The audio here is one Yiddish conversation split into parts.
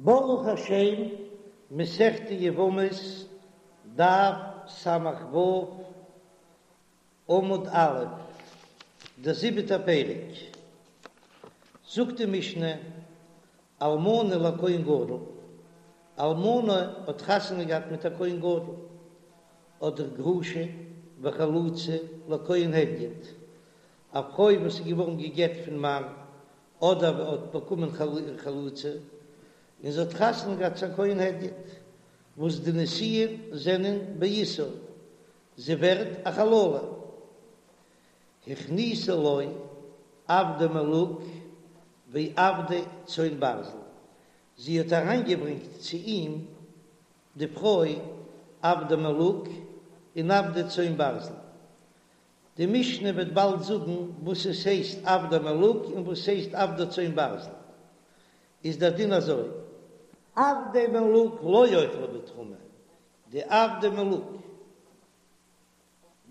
ברוך השם, מסכת יבמות, דף ס"ו, עמוד א', דער זיבעטער פרק. זאגט די משנה, אלמנה לכהן גדול, אלמנה האט חתונה געהאט מיט א כהן גדול, אדער גרושה וחלוצה לכהן הדיוט, א פרוי וואס איז געווארן גע'גט פון מאן, אדער האט באקומען חליצה און זי האט חתונה געהאט צו א כהן הדיוט, וואס די נישואין זענען באיסור, זי ווערט א חללה. הכניסה לו עבדי מלוג ועבדי צאן ברזל, זי האט אריינגעברענגט צו אים די פרוי עבדי מלוג און עבדי צאן ברזל, די משנה וועט באלד זאגן וואס עס הייסט עבדי מלוג און וואס הייסט עבדי צאן ברזל, איז דער דין אזוי. עבדי מלוג לא יאכלו בתרומה, די עבדי מלוג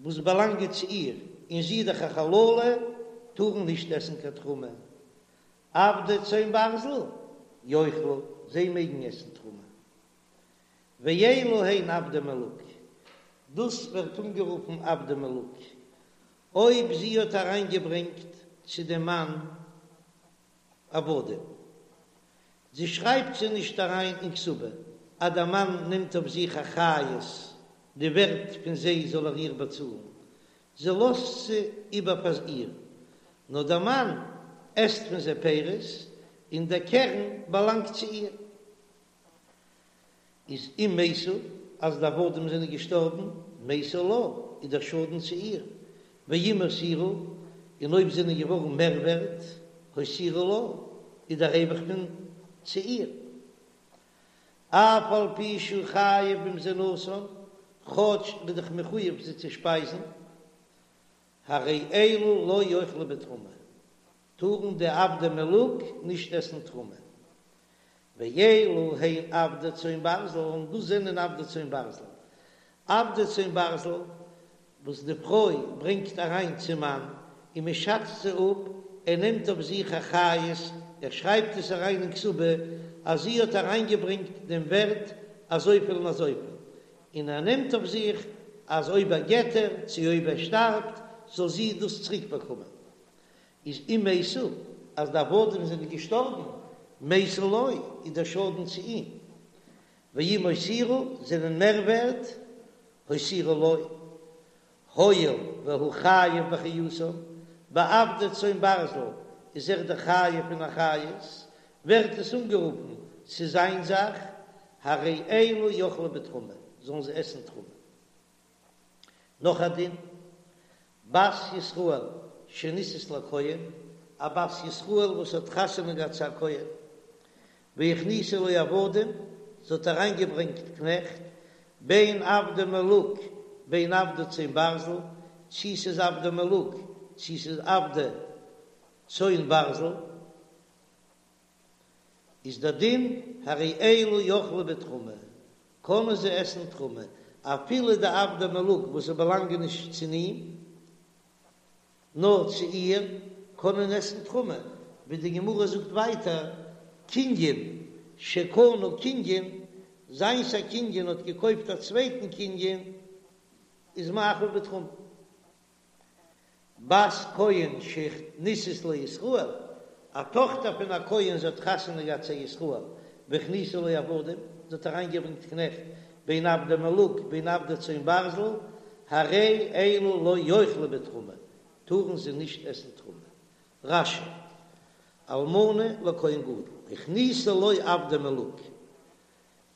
וואס באלאנגען צו איר און זי איז דאך א חללה טארן נישט עסן קיין תרומה, עבדי צאן ברזל יאכלו, זיי מעגן עסן תרומה. ואלו הן עבדי מלוג, דאס ווערט אנגערופן עבדי מלוג, אויב זי האט אריינגעברענגט צו דעם מאן עבדים, זי שרייבט זיי נישט אריין אין כתובה, אז דער מאן נעמט אויף זיך אחריות די ווערט פון זיי זאל ער איר באצאלן, זי לאזט זיי איבער פאר איר, נאר דער מאן עסט פון זיי פירות און דער קרן באלאנגט צו איר. איז אם מתו, אז די עבדים זענען געשטארבן, מתו לה, איז דער שאדן צו איר, ואם הותירו, און אויב זענען געווארן מער ווערט, הותירו לה, איז דער רווח פון צו איר. אף על פי שהוא חייב במזונותן, כאטש ער איז דאך מחויב זיי צו שפייזן, הרי אלו לא יאכלו בתרומה, טארן די עבדי מלוג נישט עסן תרומה. ואלו הן עבדי צאן ברזל, און דאס זענען עבדי צאן ברזל. עבדי צאן ברזל וואס די פרוי ברענגט אריין צום מאן און מען שאצט זיי אפ, ער נעמט אויף זיך אחריות, ער שרייבט עס אריין אין כתובה אז זי האט אריינגעברענגט דעם ווערט אזויפיל און אזויפיל, און ער נעמט אויף זיך אז אויב ער גט איר, צו אויב ער שטארבט, זאל זי דאס צוריק באקומען. איז אם מתו, אז די עבדים זענען געשטארבן, מתו לו, איז דער שאדן צו אים, ואם הותירו, זענען מער ווערט, הותירו לו, הואיל והוא חייב באחריותן, ביי עבדי צאן ברזל איז ער דאך חייב אין אחריות, ווערט עס אנגערופן ס'איז זיין זאך, הרי אלו יאכלו בתרומה, זאלן זיי עסן תרומה. נאך א דין, בת ישראל שנישאת לכהן, א בת ישראל וואס האט חתונה געהאט צו א כהן, והכניסה לו עבדים, זי האט אריינגעברענגט קנעכט, בין עבדי מלוג בין עבדי צאן ברזל, צי ס'איז עבדי מלוג צי ס'איז עבדי צאן ברזל, איז דער דין הרי אלו יאכלו בתרומה, קענען זיי עסן תרומה, אפילו די עבדי מלוג וואס זיי באלאנגען נישט צו אים, נאר צו איר, קענען עסן תרומה, ווי די גמרא זאגט ווייטער, קנין שקנה קנין, זיינס א קנין האט געקויפט א צווייטן קנין, איז מאכיל בתרומה. בת כהן שנישאת לישראל, א טאכטער פון א כהן זי האט חתונה געהאט צו א ישראל, והכניסה לו עבדים, זי האט אריינגעברענגט קנעכט, בין עבדי מלוג בין עבדי צאן ברזל, הרי אלו לא יאכלו בתרומה, טארן זיי נישט עסן תרומה. רש"י, אלמנה לכהן גדול, הכניסה לו עבדי מלוג,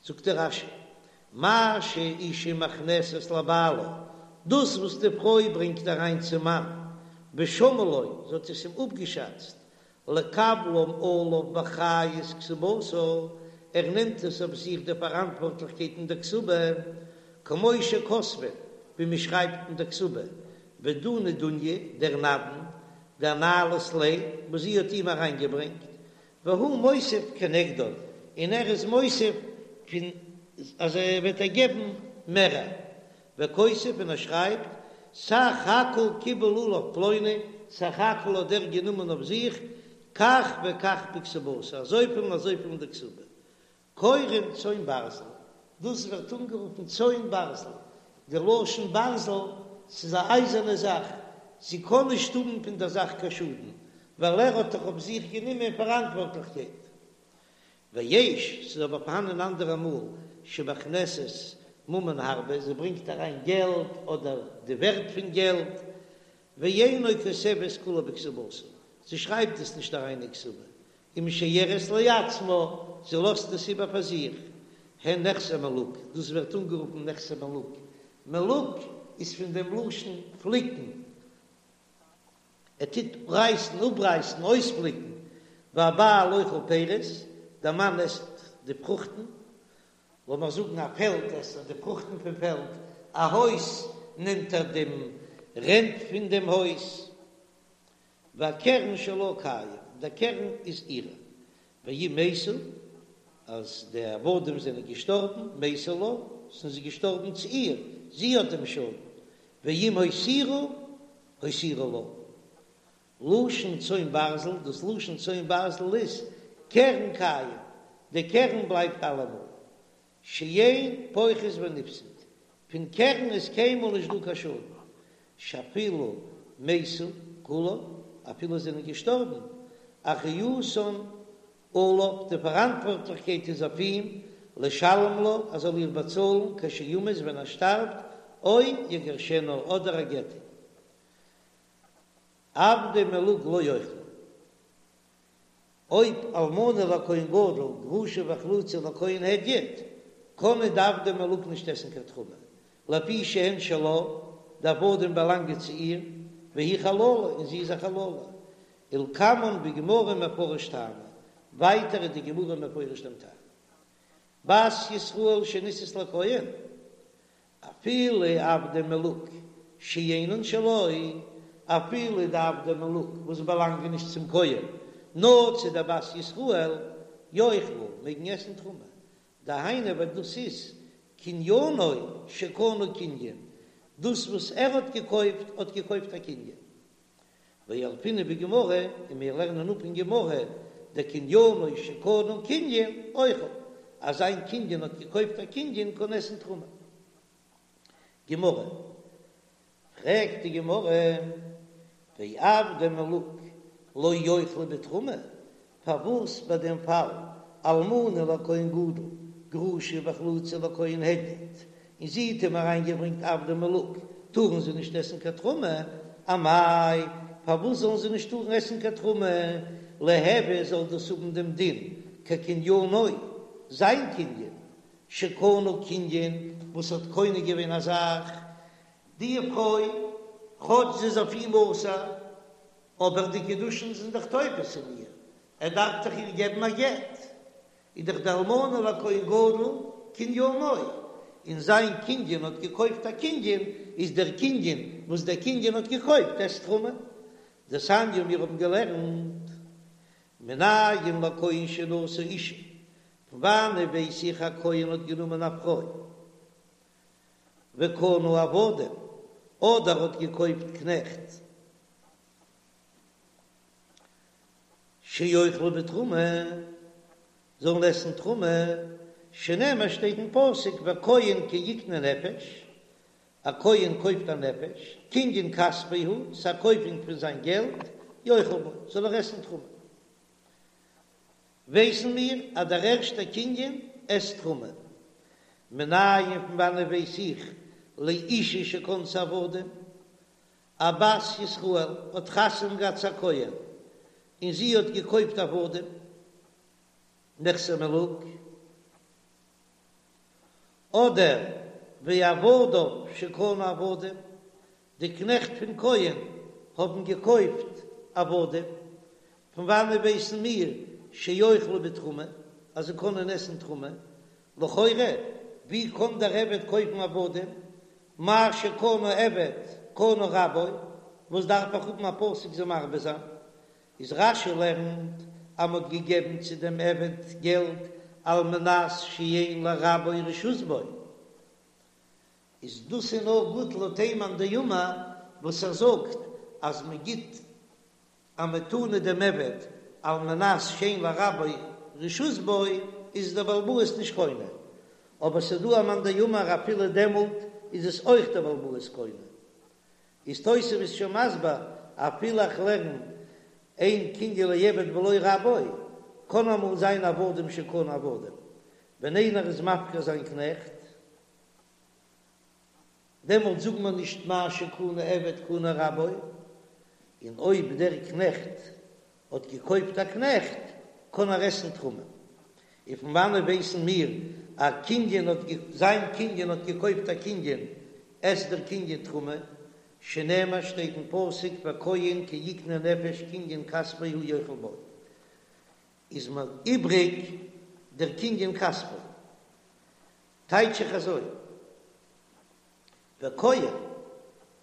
זאגט דער רש"י, מה שאשה מכנסת לבעלה, דאס וואס די פרוי ברענגט אריין צום מאן, ושמאה לו, זי האט עס אים אפגעשאצט, לקבלם עליו באחריות כתובתה, ער נעמט עס אויף זיך די פאראנטווארטליכקייט אין דער כתובה, כמו שכותבין, ווי מען שרייבט אין דער כתובה, ודינא דוניא, דער נדן, דאנהלת ליה, וואס זי האט אים אריינגעברענגט, והוא מוסיף כנגדו, און ער איז מוסיף פון אז ער וועט איר געבן מערער, וכותב און ער שרייבט, סך הכל קיבל עליו פלוני, סך הכל האט דער גענומען אויף זיך כך וכך בכתובתה, אזויפיל און אזויפיל אין די כתובה. קורין צאן ברזל, דאס ווערט אנגערופן צאן ברזל, די לשון ברזל, ס'איז א אייזערנע זאך, זי קען נישט האבן פון דער זאך קיין שאדן, ווייל ער האט דאך אויף זיך גענומען פאראנטווארטליכקייט. ויש, ס'איז אבער פארהאנען אנדערע מאל, שמכנסת ממון הרבה, זי ברענגט אריין געלט אדער די ווערט פון געלט, ואינה כותבת כולה בכתובתה, זי שרייבט עס נישט אריין אין כתובה, ומשיירת לעצמה, זי לאזט עס איבער פאר זיך, הן נכסי מלוג, דאס ווערט אנגערופן נכסי מלוג, מלוג איז פון דעם לשון פליקן, ער טוט רייסן, אפרייסן, אויספליקן, והבעל אוכל פירות, דער מאן עסט די פרוכטן, לאמיר זאגן א פעלד עסט ער די פרוכטן פון פעלד, א הויז נעמט ער דעם רענט פון דעם הויז. והקרן שלה קיים, דער קרן איז אירע, ואם מתו, אז די עבדים זענען געשטארבן, מתו לה, זענען זיי געשטארבן צו איר, זי האט דעם שאדן, ואם הותירו, הותירו לה. לשון צאן ברזל, דאס לשון צאן ברזל איז קרן קיים, די קרן בלייבט אלעמאל, שאין פוחת ונפסד, פון קרן איז קיינמאל נישט דא קיין שאדן, שאפילו מתו כולן, אפילו זענען געשטארבן, אחריותן עליו, די פאראנטווארטליכקייט איז אויף אים, לשלם לה, ער זאל איר באצאלן, כשימות ווען ער שטארבט, או יגרשנה, אדער ער גט איר. עבדי מלוג לא יאכלו. אויב אלמנה לכהן גדול, גרושה וחלוצה לכהן הדיוט, קענען די עבדי מלוג נישט עסן קיין תרומה, לפי שהן שלה, די עבדים באלאנגען צו איר, והיא חללה, און זי איז א חללה. ולקמן בגמרא מפרש טעמא, ווייטער איז די גמרא מפרש דעם טעם. בת ישראל שנישאת לכהן, אפילו עבדי מלוג שאינן שלו, אפילו די עבדי מלוג וואס באלאנגען נישט צום כהן, נאר צו דער בת ישראל, יאכלו, מעגן עסן תרומה, דהיינו ווייל דאס איז קניינו שקנה קנין, דאס וואס ער האט געקויפט האט געקויפט א קנין. וילפינן בגמרא, און מיר לערנען אפ אין גמרא, דקניינו שקנה קנין אוכל, אז זיין קנין האט געקויפט א קנין קען עסן תרומה. גמרא, פרעגט די גמרא, ועבדי מלוג לא יאכלו בתרומה, פארוואס ביי דעם פאל אלמנה לכהן גדול גרושה וחלוצה לכהן הדיוט, און זי האט אים אריינגעברענגט עבדי מלוג, טארן זיי נישט עסן קיין תרומה? אמאי, פארוואס זאלן זיי נישט טארן עסן קיין תרומה? ליהוי זאל דאס האבן דעם דין כקניינו, זיין קנין, שקנה קנין, וואס האט קונה געווען א זאך, די פרוי, כאטש זי איז אויף אים אסור, אבער די קידושין זענען דאך תופס אין איר, ער דארף דאך איר געבן א גט, איז דאך די אלמנה לכהן גדול קניינו, און זיין קנין האט געקויפט א קנין, איז דער קנין וואס דער קנין האט געקויפט עסט תרומה. דתניא מיר האבן געלערנט מנין לכהן שנשא אישה, פון וואנען ווייס איך א כהן האט גענומען א פרוי וקנה עבדים, אדער האט געקויפט קנעכט שיאכלו בתרומה, זאלן עסן תרומה, שנאמר שטייט אין פסוק וכהן כי יקנה נפש, א כהן קויפט א נפש, קנין כספו הוא, ס'א קויפונג פון זיין געלט, יאכל בו, זאל ער עסן תרומה. ווייסן מיר אז דער ערשטער קנין עסט תרומה. מנין פון וואנעט ווייס איך לאישה שקנתה עבדים? א בת ישראל האט חתונה געהאט צו א כהן און זי האט געקויפט עבדים, נכסי מלוג, אדער ועבדיו שקנו עבדים, די קנעכט פון כהן האבן געקויפט עבדים, פון וואנעט ווייסן מיר שיאכלו בתרומה אז זיי קענען עסן תרומה? לכאורה ווי קען דער עבד קויפן עבדים? מה שקנה עבד קנה רבו, וואס דארף איך האבן א פסוק זיי מרבה זיין? איז רש"י לערנט אז מ'האט געגעבן צו דעם עבד געלט על מנת שאין לרבו רשות בו, איז דאס איז נאר גוט לויט איין מאן דאמר וואס ער זאגט אז מ'גיט א מתנה דעם עבד על מנת שאין לרבו רשות בו. איז דער בעל הבית נישט קונה, אבער ס'דא א מאן דאמר אפילו דעמאלט איז עס אויך דער בעל הבית קונה. איז תוספות שוין מסביר אפילו איך לערן אין קנין לעבד בלא רבו, קען אמאל זיין עבדים שקנו עבדים, ווען איינער איז מפקיר זיין קנעכט, דעמאלט זאגט מען נישט מה שקנה עבד קנה רבו, און אויב דער קנעכט האט געקויפט א קנעכט קען ער עסן תרומה. און פון וואנעט ווייסן מיר א קנין האט זיין קנין האט געקויפט א קנין עסט דער קנין תרומה, שנאמר שטייט אין פסוק והכהן כי יקנה נפש קנין כספו הוא יאכל בו, איז מיר איבריג דער קנין כספו. טייטש איך אזוי, והכהן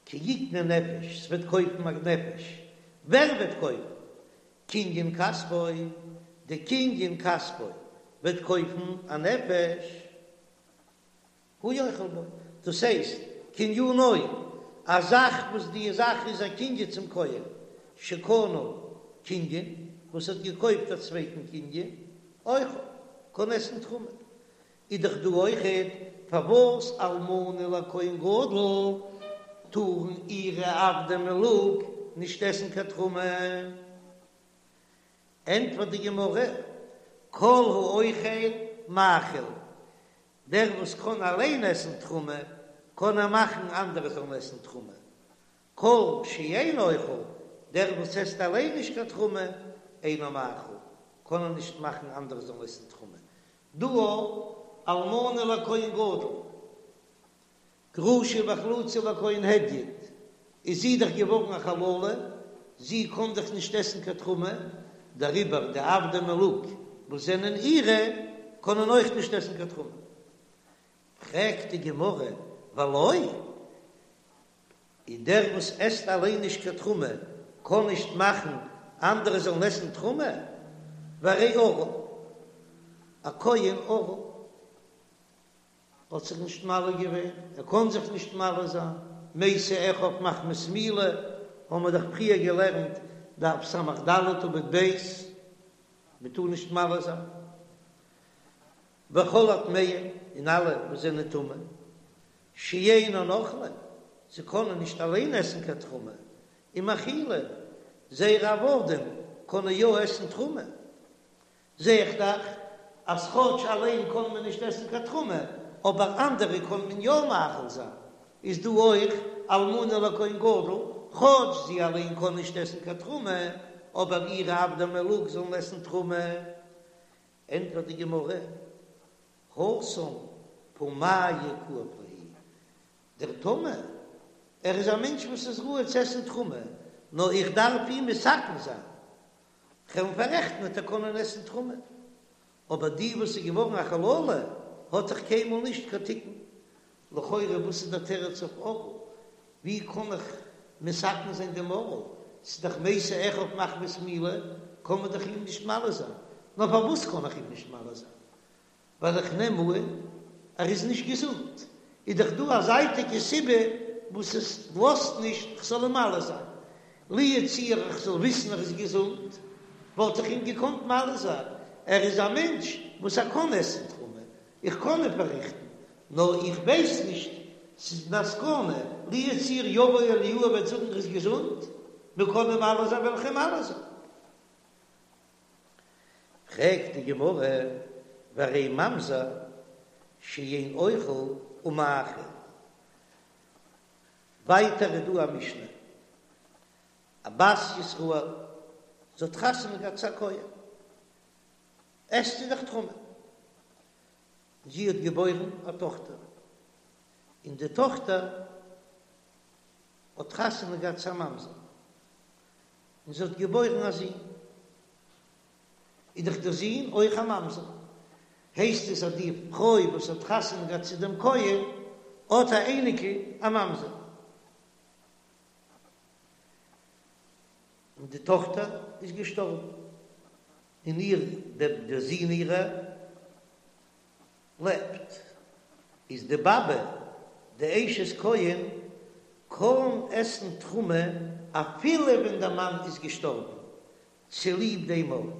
כי יקנה נפש, ס'וועט קויפן א נפש, ווער וועט קויפן? קנין כספו, די קנין כספו וועט קויפן א נפש, הוא יאכל בו, דאס הייסט קנינו, א זאך וואס די זאך איז א קנין צום כהן, שקנה קנין, וואס האט געקויפט א צווייטן קנין, אוכל, קען עסן תרומה, איז דאך דא אויכעט פארוואס אלמנה לכהן גדול טארן אירע עבדי מלוג נישט עסן קיין תרומה? ענטפערט די גמרא, כל האוכל מאכיל, דער וואס קען אליין עסן תרומה קען ער מאכן אנדערע זאלן עסן תרומה, כל שאין אוכל, דער וואס עסט אליין נישט קיין תרומה, אינו מאכיל, קען ער נישט מאכן אנדערע זאלן עסן תרומה, דא אלמנה לכהן גדול, גרושה וחלוצה לכהן הדיוט, איז זי דאך געווארן א חללה, זי קען דאך נישט עסן קיין תרומה, דעריבער די עבדי מלוג וואס זענען אירע קענען אויך נישט עסן קיין תרומה. פרעגט די גמרא, ולא? און דער וואס עסט אליין נישט קיין תרומה קען נישט מאכן אנדערע זאלן עסן תרומה, והרי ערל, א כהן ערל האט זיך נישט מל געווען, ער קען זיך נישט מל זיין, מתו אחיו מחמת מילה, האבן מיר דאך פריער געלערנט דף ס"ד עמוד ב', מען טאר נישט מל זיין. וכל הטמאים, און אלע וואס זענען טמא, שאינן אוכלין, זיי קענען נישט אליין עסן קיין תרומה, ומאכילין, זייערע עבדים קענען יא עסן תרומה. זע איך דאך אז כאטש אליין קען מען נישט עסן קיין תרומה, אבער אנדערע קען מען יא מאכיל זיין. איז דא אויך אלמנה לכהן גדול, כאטש זי אליין קען נישט עסן קיין תרומה, אבער אירע עבדי מלוג זאלן עסן תרומה. ענטפערט די גמרא, התם פומייהו כאיב להו, דער טמא, ער איז א מענטש וואס איז ראוי צו עסן תרומה, נאר איך דארף אים מתקן זיין, כ'וועל אים פאררעכטן וועט ער קענען עסן תרומה, אבער די וואס איז געווארן א חללה האט דאך קיינמאל נישט קיין תיקון, לכאורה וואס איז דער תירוץ אויף ערל? ווי קען איך מתקן זיין דעם ערל? ס'איז דאך מתו אחיו מחמת מילה, קען מען דאך אים נישט מל זיין. נאר פארוואס קען איך אים נישט מל זיין? ווייל איך נעם אן ער איז נישט געזונט. איז דאך דא א זייטיגע סיבה וואס עס לאזט נישט כ'זאל אים מל זיין. לו יצוייר איך זאל וויסן ער איז געזונט, וואלט איך אים געקאנט מל זיין. ער איז א מענטש וואס ער קען עסן תרומה, איך קען אים פארריכטן, נאר איך ווייס נישט, ס'איז א סכנה, לו יצוייר יבוא אליהו וועט זאגן ער איז געזונט, מ'קען אים מל זיין וועל איך אים מל זיין. פרעגט די גמרא, והרי ממזר שאין אוכל ומאכיל, ווייטער איז דא א משנה, א בת ישראל, זי האט חתונה געהאט צו א כהן, עסט זי דאך תרומה. זי האט געבוירן א טאכטער, און די טאכטער האט חתונה געהאט צו א ממזר, און זי האט געבוירן א זון, איז דאך דער זון אויך א ממזר, הייסט עס אז די פרוי וואס האט חתונה געהאט צו דעם כהן האט א אייניקל א ממזר. און די טאָכטער איז געשטאָרבן, און איר דער דער זון אירער לעבט. איז די באַבע, די אשת כהן, קאָן עסן תרומה אַפילו ווען דער מאַן איז געשטאָרבן, צוליב דעם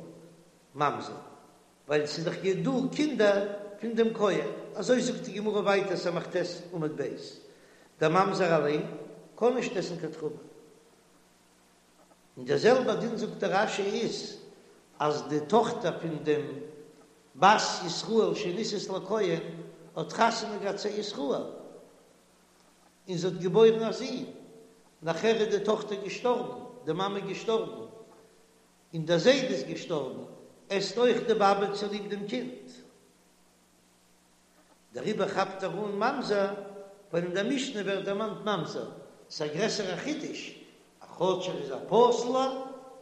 ממזר. ווייל ס'איז דאך דא קינדער פון דעם כהן, אזוי זאגט די גמרא ווייטער ס"ט עמוד ב', דער ממזר אליין קען נישט עסן קיין תרומה. און דער זעלבער דין זאגט דער רש"י איז אז די טאכטער פון דעם בת ישראל שנישאת לכהן האט חתונה געהאט צו א ישראל און זי האט געבוירן א זון, נאכער איז די טאכטער געשטארבן, די מאמע געשטארבן, און דער זיידע איז געשטארבן, עסט אויך די באבע צוליב דעם קינד. דעריבער כאפט ער אן ממזר, ווייל אין דער משנה ווערט דערמאנט ממזר, ס'איז א גרעסערע חידוש, אז כאטש ער איז א פסול'ער,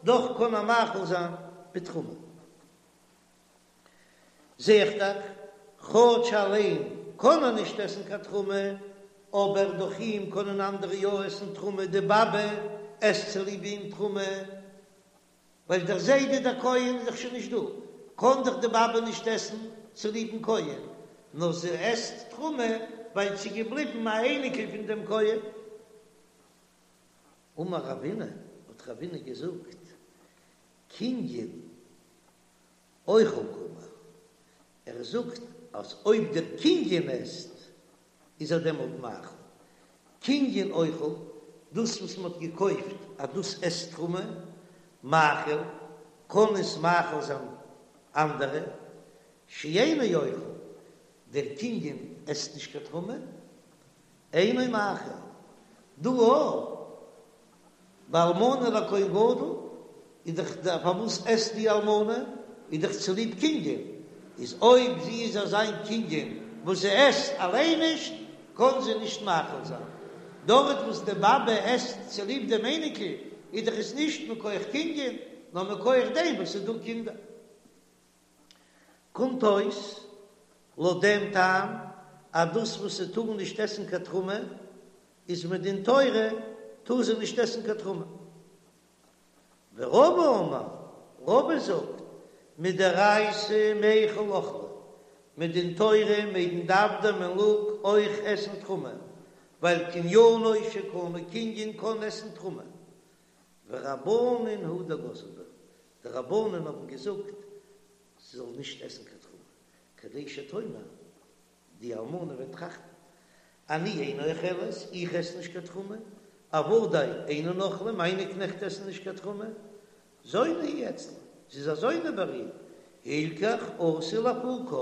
דאך קען ער מאכיל זיין בתרומה. זע איך דאך, כאטש אליין קען ער נישט עסן קיין תרומה, אבער דורך אים קענען אנדערע יא עסן תרומה, די באבע עסט צוליב אים תרומה, ווייל דער זיידע דער כהן איז דאך שוין נישט דא, קען דאך די באבע נישט עסן צוליבן כהן, נאר זי עסט תרומה ווייל ס'איז געבליבן א אייניקל פון דעם כהן. אמר רבינא, האט רבינא געזאגט, קנין אוכל קאמר, ער זאגט אז אויב דער קנין עסט איז ער דעמאלט מאכיל. קנין אוכל, דאס וואס מען האט געקויפט אז דאס עסט תרומה, מאכיל, קען עס מאכיל זיין אנדערע, שאינו אוכל, דער קנין עסט נישט קיין תרומה, אינו מאכיל. דא אויך ביי אלמנה לכהן גדול איז דאך די פארוואס עסט די אלמנה איז דאך צוליב קנין, איז אויב זי איז אזא קנין וואס זי עסט אליין נישט קען זי נישט מאכיל זיין, דארט וואס די באבע עסט צוליב דעם אייניקל איז דאך עס נישט מכח קנין נאר מכח דעם וואס ס'איז דא קינדער. קומט אויס לויט דעם טעם אז דאס וואס זי טאר נישט עסן קיין תרומה איז מדין תורה טאר זי נישט עסן קיין תרומה. ורבא אמר, רבא זאגט, מדאורייתא מיכל אכלי, מדין תורה מעגן די עבדי מלוג אויך עסן תרומה, ווייל קניינו שקנה קנין קען עסן תרומה. ורבנן הוא דגזרו בה, די רבנן האבן געזאגט זי זאל נישט עסן קיין תרומה, כדי שתאמר, די אלמנה וועט טראכטן, אני איני אוכלת, איך עס נישט קיין תרומה, עבדי אינן אוכלים, מיינע קנעכט עסן נישט קיין תרומה, זונה היא אצלה, זי איז א זונה ביי איר, הלכך אתי לאפוקה,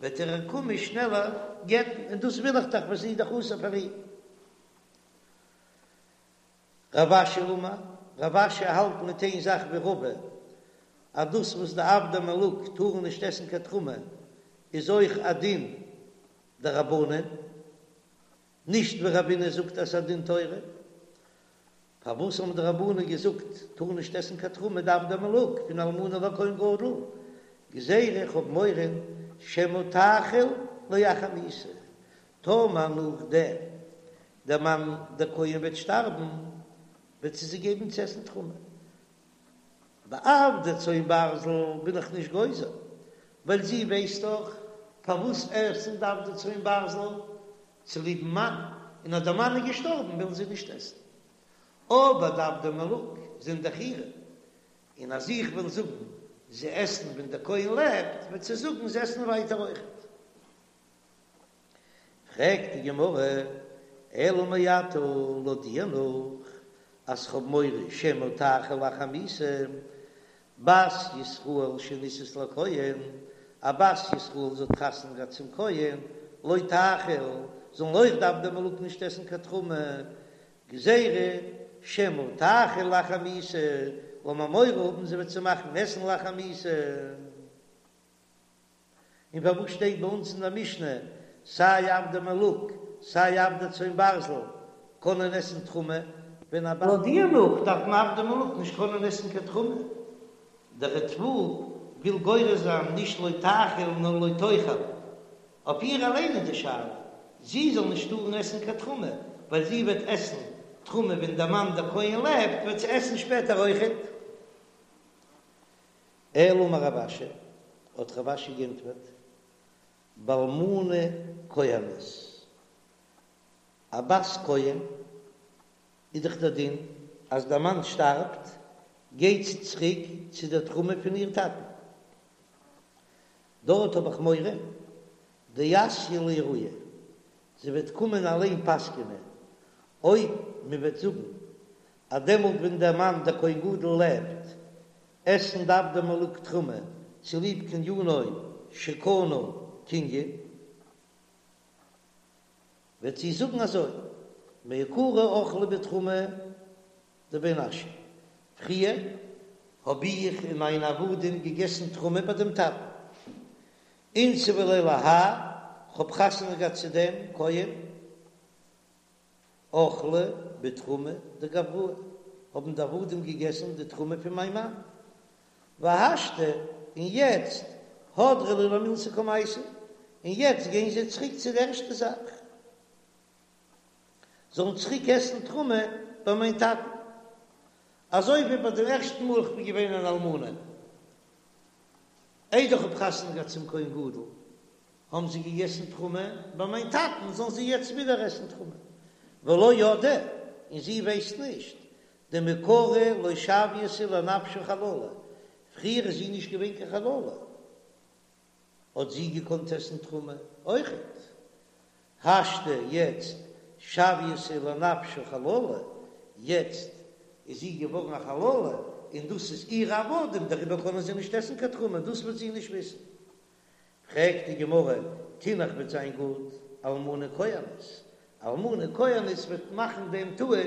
וועט ער איר קומען שנעלער גט'ן, און דאס וויל איך דאך ווייל זי איז דאך אסור פאר אים. רב אשי אמר, רב אשי האלט מיט איין זאך ווי רבא, אז דאס וואס די עבדי מלוג טארן נישט עסן קיין תרומה איז אויך א דין דרבנן, נישט ווי רבינא זאגט אז ס'איז א דין תורה. פארוואס האבן די רבנן געזאגט טארן נישט עסן קיין תרומה די עבדי מלוג פון אלמנה לכהן גדול? גזירה איך האב מורא שמא תאכיל לאחר מיתה, טאמער נאכדעם דער מאן דער כהן וועט שטארבן, וועט זי זיי געבן צו עסן תרומה. ביי עבדי צאן ברזל בין איך נישט גוזר, ווייל זי ווייסט דאך פארוואס עסן די עבדי צאן ברזל, צוליבן מאן, און אז דער מאן איז געשטארבן ווילן זיי נישט עסן. אבער די עבדי מלוג זענען דאך אירע, און אז איך וועל זאגן זיי עסן ווען דער כהן לעבט, וועט זי זאגן זיי עסן ווייטער אויכעט. פרעגט די גמרא, אלא מעתה לויט דיר נאך אז כ'האב מורא שמא תאכיל לאחר מיתה, בת ישראל שנישאת לכהן, א בת ישראל זי האט חתונה געהאט צום כהן, לא תאכיל, זאלן אויך די עבדי מלוג נישט עסן קיין תרומה, גזירה שמא תאכיל לאחר מיתה, לאמיר מורא האבן זי וועט זיי מאכן עסן לאחר מיתה. און פארוואס שטייט ביי אונז אין דער משנה סיי עבדי מלוג סיי עבדי צאן ברזל קענען עסן תרומה, ווען א לויט דיר נאך דארפן עבדי מלוג נישט קענען עסן קיין תרומה, דער ריטב"א וויל גורס זיין נישט לא תאכיל נאר לא תאכל, אויף איר אליין איז די שאלה זי זאל נישט טארן עסן קיין תרומה, ווייל זי וועט עסן תרומה ווען דער מאן דער כהן לעבט וועט זי עסן שפעטער אויכעט. אלא אמר רב אשי, האט רב אשי גענטפערט, באלמנה כהנת, א בת כהן איז דאך דער דין אז דער מאן שטארבט גייט זי צוריק צו דער תרומה פון איר טאטן. דארט האב איך מורא דאתיא לאיעורי, זי וועט קומען אליין פסק'נען, אויב מען וועט זאגן אז דעמאלט ווען דער מאן דער כהן גדול לעבט, עסן די עבדי מלוג תרומה צוליב קנינו שקנה קנין, וועט זי זאגן אזוי, מעיקרא אכלי בתרומה דבי נשא, פריער האב איך און מיינע עבדים געגעסן תרומה ביי דעם טאטן, אינסבי ליה להאי, כ'האב חתונה געהאט צו דעם כהן, אכלי בתרומה דגבראי, האבן די עבדים געגעסן די תרומה פון מיין מאן, והשתא, און יעצט, הדרי להו למילתא קמייתא, און יעצט גייען זיי צוריק צו די ערשטע זאך, זאלן צוריק עסן תרומה ביי מיין טאטן, אזוי ווי ביי דעם ערשטן מאל איך בין געווען אן אלמנה, איידער איך האב חתונה געהאט צום כהן גדול, האבן זיי געגעסן תרומה ביי מיין טאטן, זאלן זיי יעצט ווידער עסן תרומה. ולא ידעה, און זי ווייסט נישט, דמעיקרא לא שויתה לנפשה חללה, פריער איז זי נישט געווען קיין חללה, האט זי געקאנט עסן תרומה אויכעט. השתא יעצט שויתה לנפשה חללה, יעצט איז זי געווארן א חללה, און דאס איז אירע עבדים, דעריבער קענען זיי נישט עסן קיין תרומה, דאס וועט זי נישט וויסן. פרעגט די גמרא, תינח וועט זיין גוט, אלמנה כהנת, אלמנה כהנת וועט מאכן דעם טעות,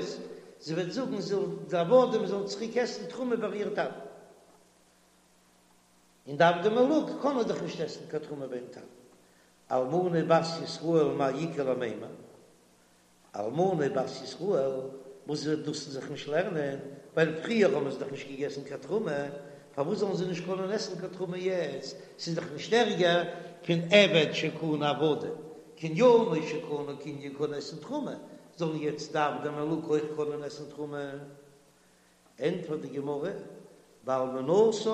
זי וועט זאגן זאל די עבדים זאלן צוריק עסן תרומה ביי איר טאטן, און די עבדי מלוג קענען דאך נישט עסן קיין תרומה ביים טאטן, אלמנה בת ישראל מאי איכא למימר, אלמנה בת ישראל, וואס וועט דאס זיך נישט לערנען, ווייל פריער האבן זיי דאך נישט געגעסן קיין תרומה, פארוואס זאלן זיי נישט קענען עסן קיין תרומה יעצט, ס'איז דאך נישט ערגער פון עבד שקנה עבדים, קנינו שקנה קנין קען עסן תרומה, זאלן יעצט די עבדי מלוג אויך קענען עסן תרומה? ענטפערט די גמרא, באלמנותה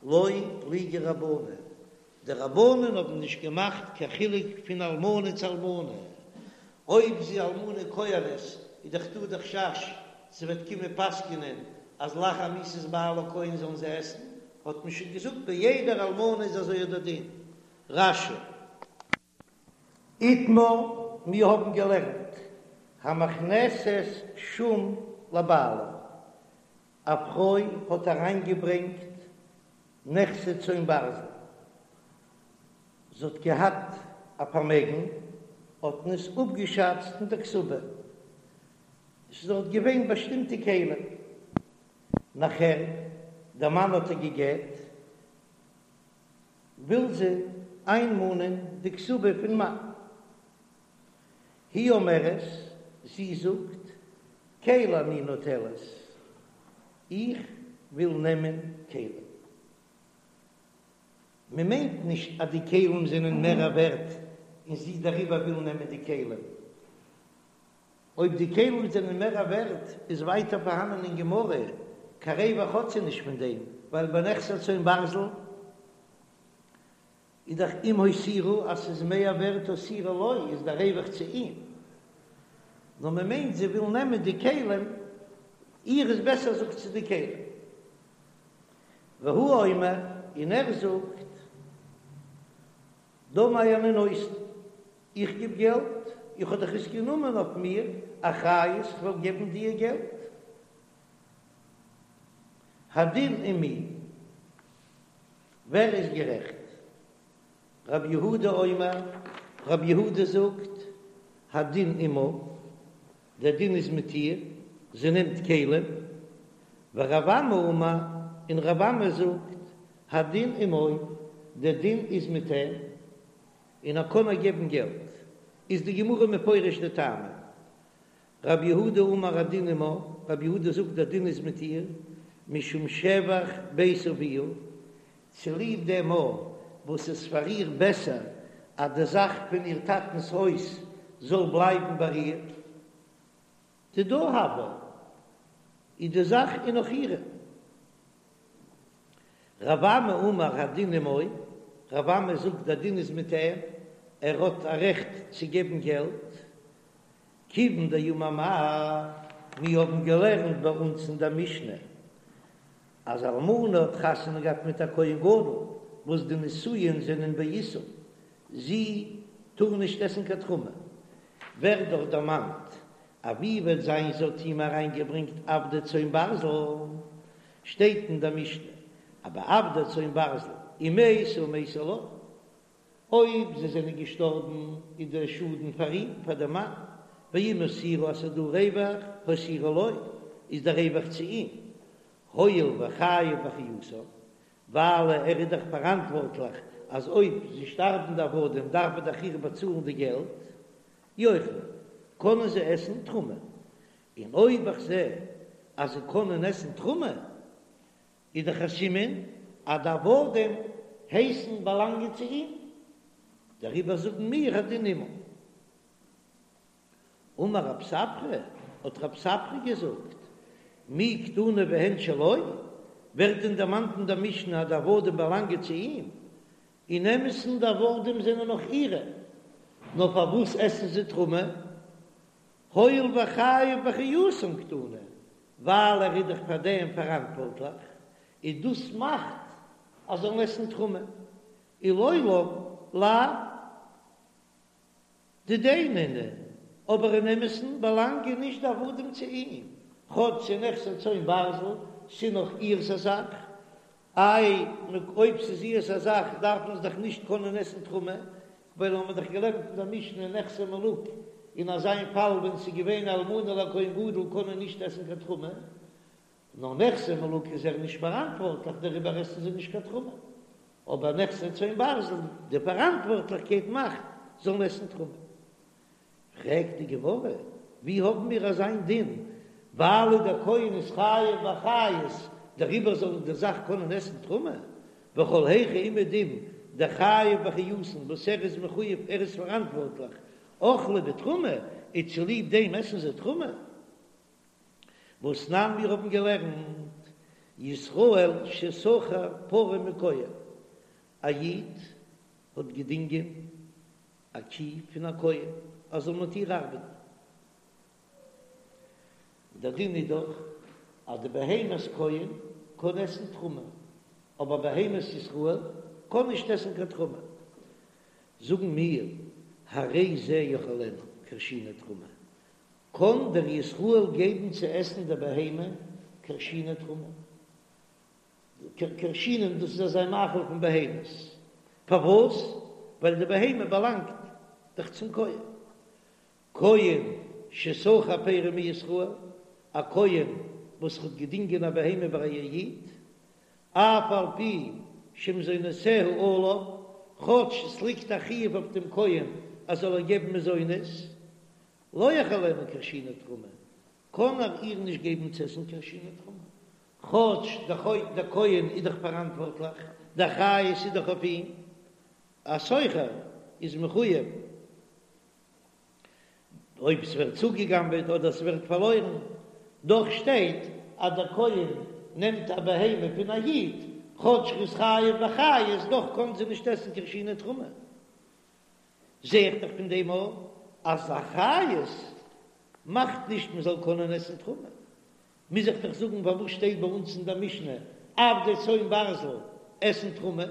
לא פליגי רבנן, די רבנן האבן נישט געמאכט קיין חילוק פון אלמנה צו אלמנה, אויב זי אלמנה כהנת איז דאך דא די חשש זי וועט קומען פסק'נען אז לאחר מיתת בעלה כהן זאלן זיי עסן, האט מען שוין געזאגט ביי יעדער אלמנה איז אזוי דער דין. רש"י. איתמר, מיר האבן געלערנט, המכנסת שום לבעלה, א פרוי האט אריינגעברענגט נכסי צאן ברזל, זי האט געהאט א פארמעגן, האט מען עס אפגעשאצט אין די כתובה, עס איז דארט געווען באשטימטע כלים, נאכער דער מאן האט איר גע'גט, וויל זי איינמאנען די כתובה פון מאן. היא אומרת, זי זאגט, כלי אני נוטלת, איך וויל נעמען כלים. מען מיינט נישט אז די כלים זענען מער ווערט און זי דעריבער וויל נעמען די כלים. אויב די כלים זענען מער ווערט איז ווייטער פארהאנען אין גמרא, קיין רווח האט זי נישט פון דעם, ווייל ביי נכסי צאן ברזל איז דאך אם הותירו אז ס'איז מער ווערט הותירו לו איז דער רווח צו אים, נאר מען מיינט זי וויל נעמען די כלים, איר איז בעסער זאגט זי די כלים. והוא אומר, און ער זאגט, דמי אני נותן, איך גיב געלט, איך האב דאך עס גענומען אויף מיר אחריות כ'וועל געבן דיר געלט. הדין עם מי, ווער איז גערעכט? רב יהודה אומר, רב יהודה זאגט, הדין עמה, דער דין איז מיט איר, זי נעמט כלים, ורב אמי אמר, און רב אמי זאגט, הדין עמו, דער דין איז מיט אים, און ער קען איר געבן געלט, איז די גמרא מפרש די טעמים. רב יהודה אמר הדין עמה, רב יהודה זאגט דער דין איז מיט איר, משום שבח בית אביה, צוליב דעם א וואס איז פאר איר בעסער אז די זאך פון איר טאטנ'ס הויז זאל בלייבן ביי איר, דידה הויא, איז די זאך איז נאך אירע. רב אמי אמר הדין עמו, רב אמי זאגט דער דין איז מיט אים, ער האט א רעכט צו געבן געלט, כיוון דאמר מר, מיר האבן געלערנט ביי אונז אין דער משנה אז אלמנה האט חתונה געהאט מיט א כהן גדול. וואס די נישואין זענען באיסור, זי טאר נישט עסן קיין תרומה, ווערט דאך דערמאנט אז ווי וועט זיין זי האט אים אריינגעברענגט עבדי צאן ברזל, שטייט אין דער משנה אז ביי עבדי צאן ברזל אם מתו מתו לו, אויב זיי זענען געשטארבן איז דער שאדן פאר אים, פאר דעם מאן, ואם הותירו אז ס'איז דא רווח, הותירו לו, איז דער רווח צו אים, הואיל וחייב באחריותן, ווייל ער איז דאך פאראנטווארטליך אז אויב זיי שטארבן די עבדים דארף ער דאך איר באצאלן די געלט, יאכלו, קענען זיי עסן תרומה, און אויב איך זע אז זיי קענען עסן תרומה, איז דאך א סימן אז די עבדים הייסן באלאנגען צו אים, דעריבער זאגן מיר הדין עמה. אמר רב ספרא, האט רב ספרא געזאגט, מי קתני והן שלו, ווערט דען דערמאנט אין דער משנה אז די עבדים באלאנגען צו אים? אין אמת'ן די עבדים זענען נאך אירע, נאר פארוואס עסן זיי תרומה? הואיל וחייב באחריותן קתני, ווייל ער איז דאך פאר דעם פאראנטווארטליך, און דאס מאכט אז זאלן עסן תרומה, ולעולם לאו דידיה נינהו, אבער אין אמת'ן באלאנגען נישט די עבדים צו אים, כאטש ס'איז נכסי צאן ברזל, ס'איז נאך איר'ס א זאך, איי, אויב ס'איז איר'ס א זאך דארף מען עס דאך נישט קענען עסן תרומה, ווייל האבן מיר דאך געלערנט אין דער משנה נכסי מלוג, אין אזא פאל ווען ס'איז געווען אלמנה לכהן גדול קען מען נישט עסן קיין תרומה, נאר נכסי מלוג איז ער נישט פאראנטווארטליך דעריבער עסן זיי נישט קיין תרומה, אבער נכסי צאן ברזל די פאראנטווארטליכקייט מאכט זאלן עסן תרומה. פרעגט די גמרא, ווי האבן מיר אזיין דין, ווייל דער כהן איז חייב באחריות, דעריבער זאל די זאך קענען עסן תרומה, וכל היכא אומעדום דחייב באחריותן וואס ער איז מחויב ער איז פאראנטווארטליך, אכלי בתרומה, און צוליב דעם עסן זיי תרומה. והתנן מיר האבן געלערנט, ישראל ששכר פרה מכהן, א איד האט געדינגען א קי פון א כהן ער זאל מיט איר ארבעטן. דער דין איז דאך אז די בהמת כהן קען עסן תרומה, אבער בהמת ישראל קען נישט עסן קיין תרומה. זאגן מיר, הרי זה יאכילנה כרשיני תרומה, קען דער ישראל געבן צו עסן די בהמה כרשיני תרומה? כרשינין דאס איז אזא מאכל פון בהמות, פארוואס? ווייל די בהמה באלאנגט דאך צום כהן. כהן ששכר פרה מישראל, א כהן וואס האט געדינגען א בהמה ביי א איד, אף על פי שמזונותיה עליו, כאטש עס ליגט א חיוב אויף דעם כהן אז זאל איר געבן מזונות, לא יאכילנה כרשיני תרומה, קען ער איר נישט געבן צו עסן כרשיני תרומה, כאטש דער כהן איז דאך פאראנטווארטליך, די אחריות איז דאך אויף אים, א שוכר איז מחויב אויב ס'ווערט צוגעגנבעט אדער ס'ווערט פארלוירן, דאך שטייט אז דער כהן נעמט א בהמה פון א איד, כאטש ר'איז חייב באחריות, דאך קען זי נישט עסן כרשיני תרומה. זע איך דאך פון דעם אויך אז אחריות מאכט נישט מ'זאל קענען עסן תרומה. מוז איך דאך זאגן פארוואס שטייט ביי אונז אין דער משנה עבדי צאן ברזל עסן תרומה?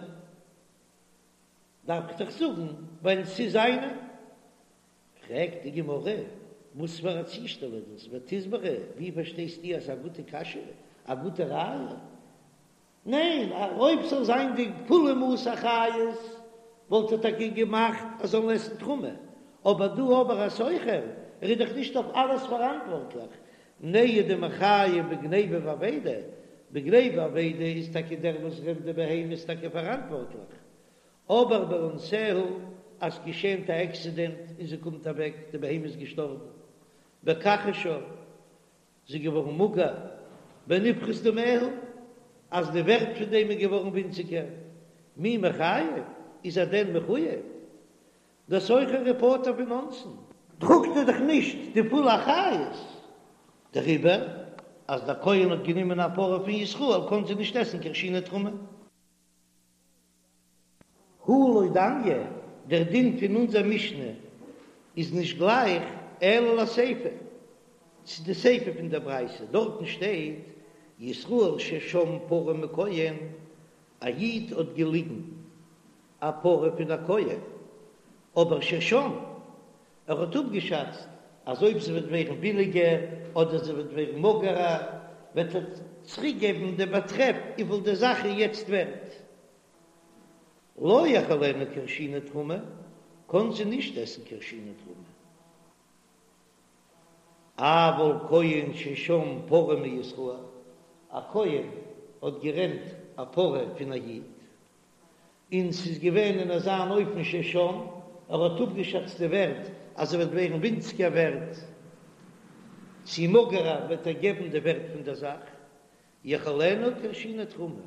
דארף איך דאך זאגן ווייל ס'איז זיינע. פרעגט די גמרא, וואס פאר א צושטעל איז דאס? ותסברא, ווי פארשטייסטו אז ס'איז א גוטע קשיא, א גוטע ראיה? ניין, אויב ס'זאל זיין די פולע מאס אחריות וואלט ער טאקע געמאכט אז זאלן עסן תרומה, אבער דא אבער א שוכר, ער איז דאך נישט אויף אלעס פאראנטווארטליך, נהי דמיחייב בגניבה ואבידה, בגניבה ואבידה איז טאקע דער וואס רענט די בהמה איז טאקע פאראנטווארטליך, אבער באונסיה אז געשענט א עקסידענט און זי קומט אוועק, די בהמה איז געשטארבן, בכחשה. זי איז געווארן מאגער, בנפחת דמיה, אז די ווערט פון דעם איז געווארן ווינציגער, מי מיחייב, איז ער דען מחוייב? דער שוכר איז פטור פון אונסין. טראגט ער דאך נישט די פולע אחריות דעריבער, אז דער כהן האט גענומען א פרה פון ישראל קען זי נישט עסן כרשיני תרומה. הא לא דמיא, דער דין פון אונזער משנה איז נישט גלייך אלא לסיפא, צו די סיפא פון דער ברייתא, דארטן שטייט ישראל ששם פרה מכהן, א איד האט געליגן. א פרה פון א כהן, אבער ששם, ער האט אפגעשאצט אז אויב זי וועט ווערן ביליגער אדער זי וועט ווערן מאגערער וועט ער צוריק געבן די באטרעף וויפיל די זאך איז יעצט ווערט. לא יאכילנה כרשיני תרומה, קען זי נישט עסן כרשיני תרומה. אבל כהן ששם פרה מישראל, א כהן האט גערענט א פרה פון א איד, און ס'איז געווען אין אזא אן אופן ששם, ער האט אפגעשאצט די ווערט אז זי וועט ווערן ווינציגער ווערט, צי מאגערער וועט ער געבן די ווערט פון דער זאך, יאכילנה כרשיני תרומה,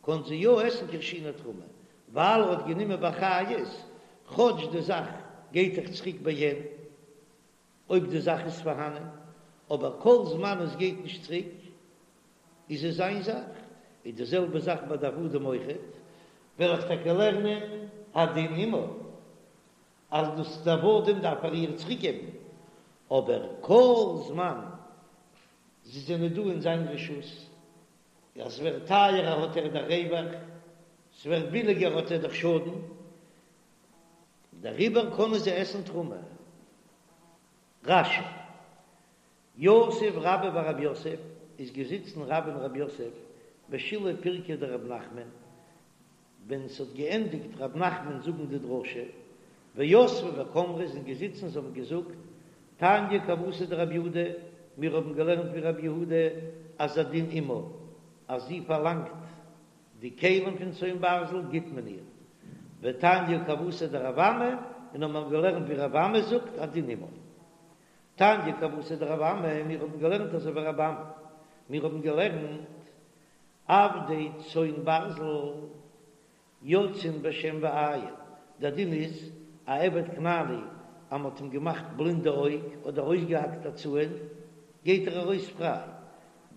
קען זי יא עסן כרשיני תרומה, ווייל ער האט גענומען באחריות, כאטש די זאך גייט דאך צוריק בעין, אויב די זאך איז פארהאנען, אבער כל זמן עס גייט נישט צוריק, איז עס זיין זאך, איז די זעלבע זאך ביי די עבדים אויכעט, וועל איך טאקע לערנען הדין עמה, אז דאס די עבדים דארף ער איר צוריק געבן, אבער כל זמן זיי זענען דא אין זיין רשות, אז ס'ווערט טייערער האט ער דאך רווח, ס'ווערט ביליגער האט ער דאך שאדן, דעריבער קענען זיי עסן תרומה. רש"י, יתיב רבה בר רב יוסף, איז געזיצן רבה און רב יוסף בשילהי פירקא דרב נחמן, ווען ס'האט געענדיגט רב נחמן זאגן די דרשה, ויתבי וקאמרי זענען געזיצן זיי האבן געזאגט, תניא כוותיה דרב יהודה, מיר האבן געלערנט ווי רב יהודה אז הדין עמה, אז זי פארלאנגט די כלים פון צאן ברזל גיט מען איר, ותניא כוותיה דרב אמי, און האבן מיר געלערנט ווי רב אמי זאגט הדין עמו. תניא כוותיה דרב אמי, מיר האבן געלערנט אזוי ווי רב אמי, מיר האבן געלערנט עבדי צאן ברזל יוצאין בשן ועין, דער דין איז א עבד כנעני אז מען האט אים געמאכט בלינד די אויג אדער אויסגעהאקט א צאן גייט ער ארויס פריי.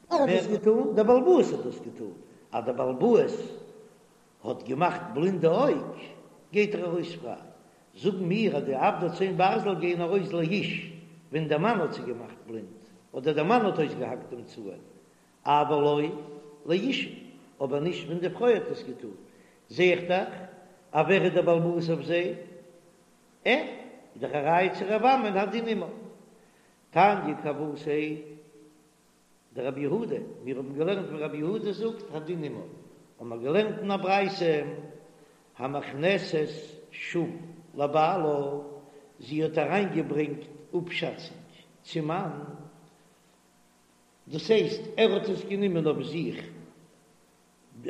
ווער האט דאס געטאן? דער בעל הבית האט דאס געטאן, אז דער בעל הבית האט געמאכט בלינד די אויג גייט ער ארויס פריי, זאגן מיר אז די עבדי צאן ברזל גייען ארויס לאיש ווען דער מאן האט זיי געמאכט בלינד אדער דער מאן האט אויסגעהאקט דעם צאן, אבל לא לאשה, אבער נישט ווען די פרוי האט עס געטאן, זע איך דאך אז ווער איז דער בעל הבית אויף זיי? ער, איז דאך א ראיה צו רב אמי'ן הדין עמה. תניא כוותיה דרב יהודה, מיר האבן געלערנט ווי רב יהודה זאגט הדין עמה, האבן מיר געלערנט אין א ברייתא, המכנסת שום לבעלה, זי האט אריינגעברענגט אפשאצונג צום מאן, דאס הייסט ער האט עס גענומען אויף זיך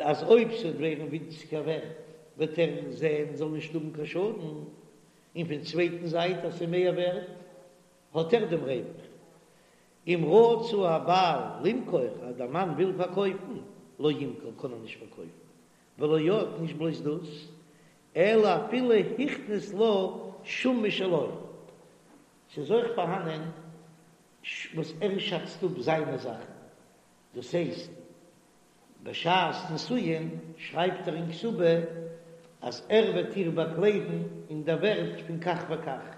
אז אויב ס'וועט ווערן ווינציגער ווערט וועט ער זען זאל נישט האבן קיין שאדן, און פון צווייטן זייט אז ס'איז מער ווערט האט ער דעם רווח. אם רצה הבעל למכור אז דער מאן וויל פארקויפן, לא ימכור קען ער נישט פארקויפן, ולא עוד נישט בלויז דאס, אלא אפילו הכניס לה שום משלו, ס'איז אויך פארהאנען וואס ער שאצט אפ זיינע זאכן, דאס הייסט בשעת נישואין שרייבט ער אין כתובה אז ער וועט איר באקליידן אין דער ווערט פון כך וכך,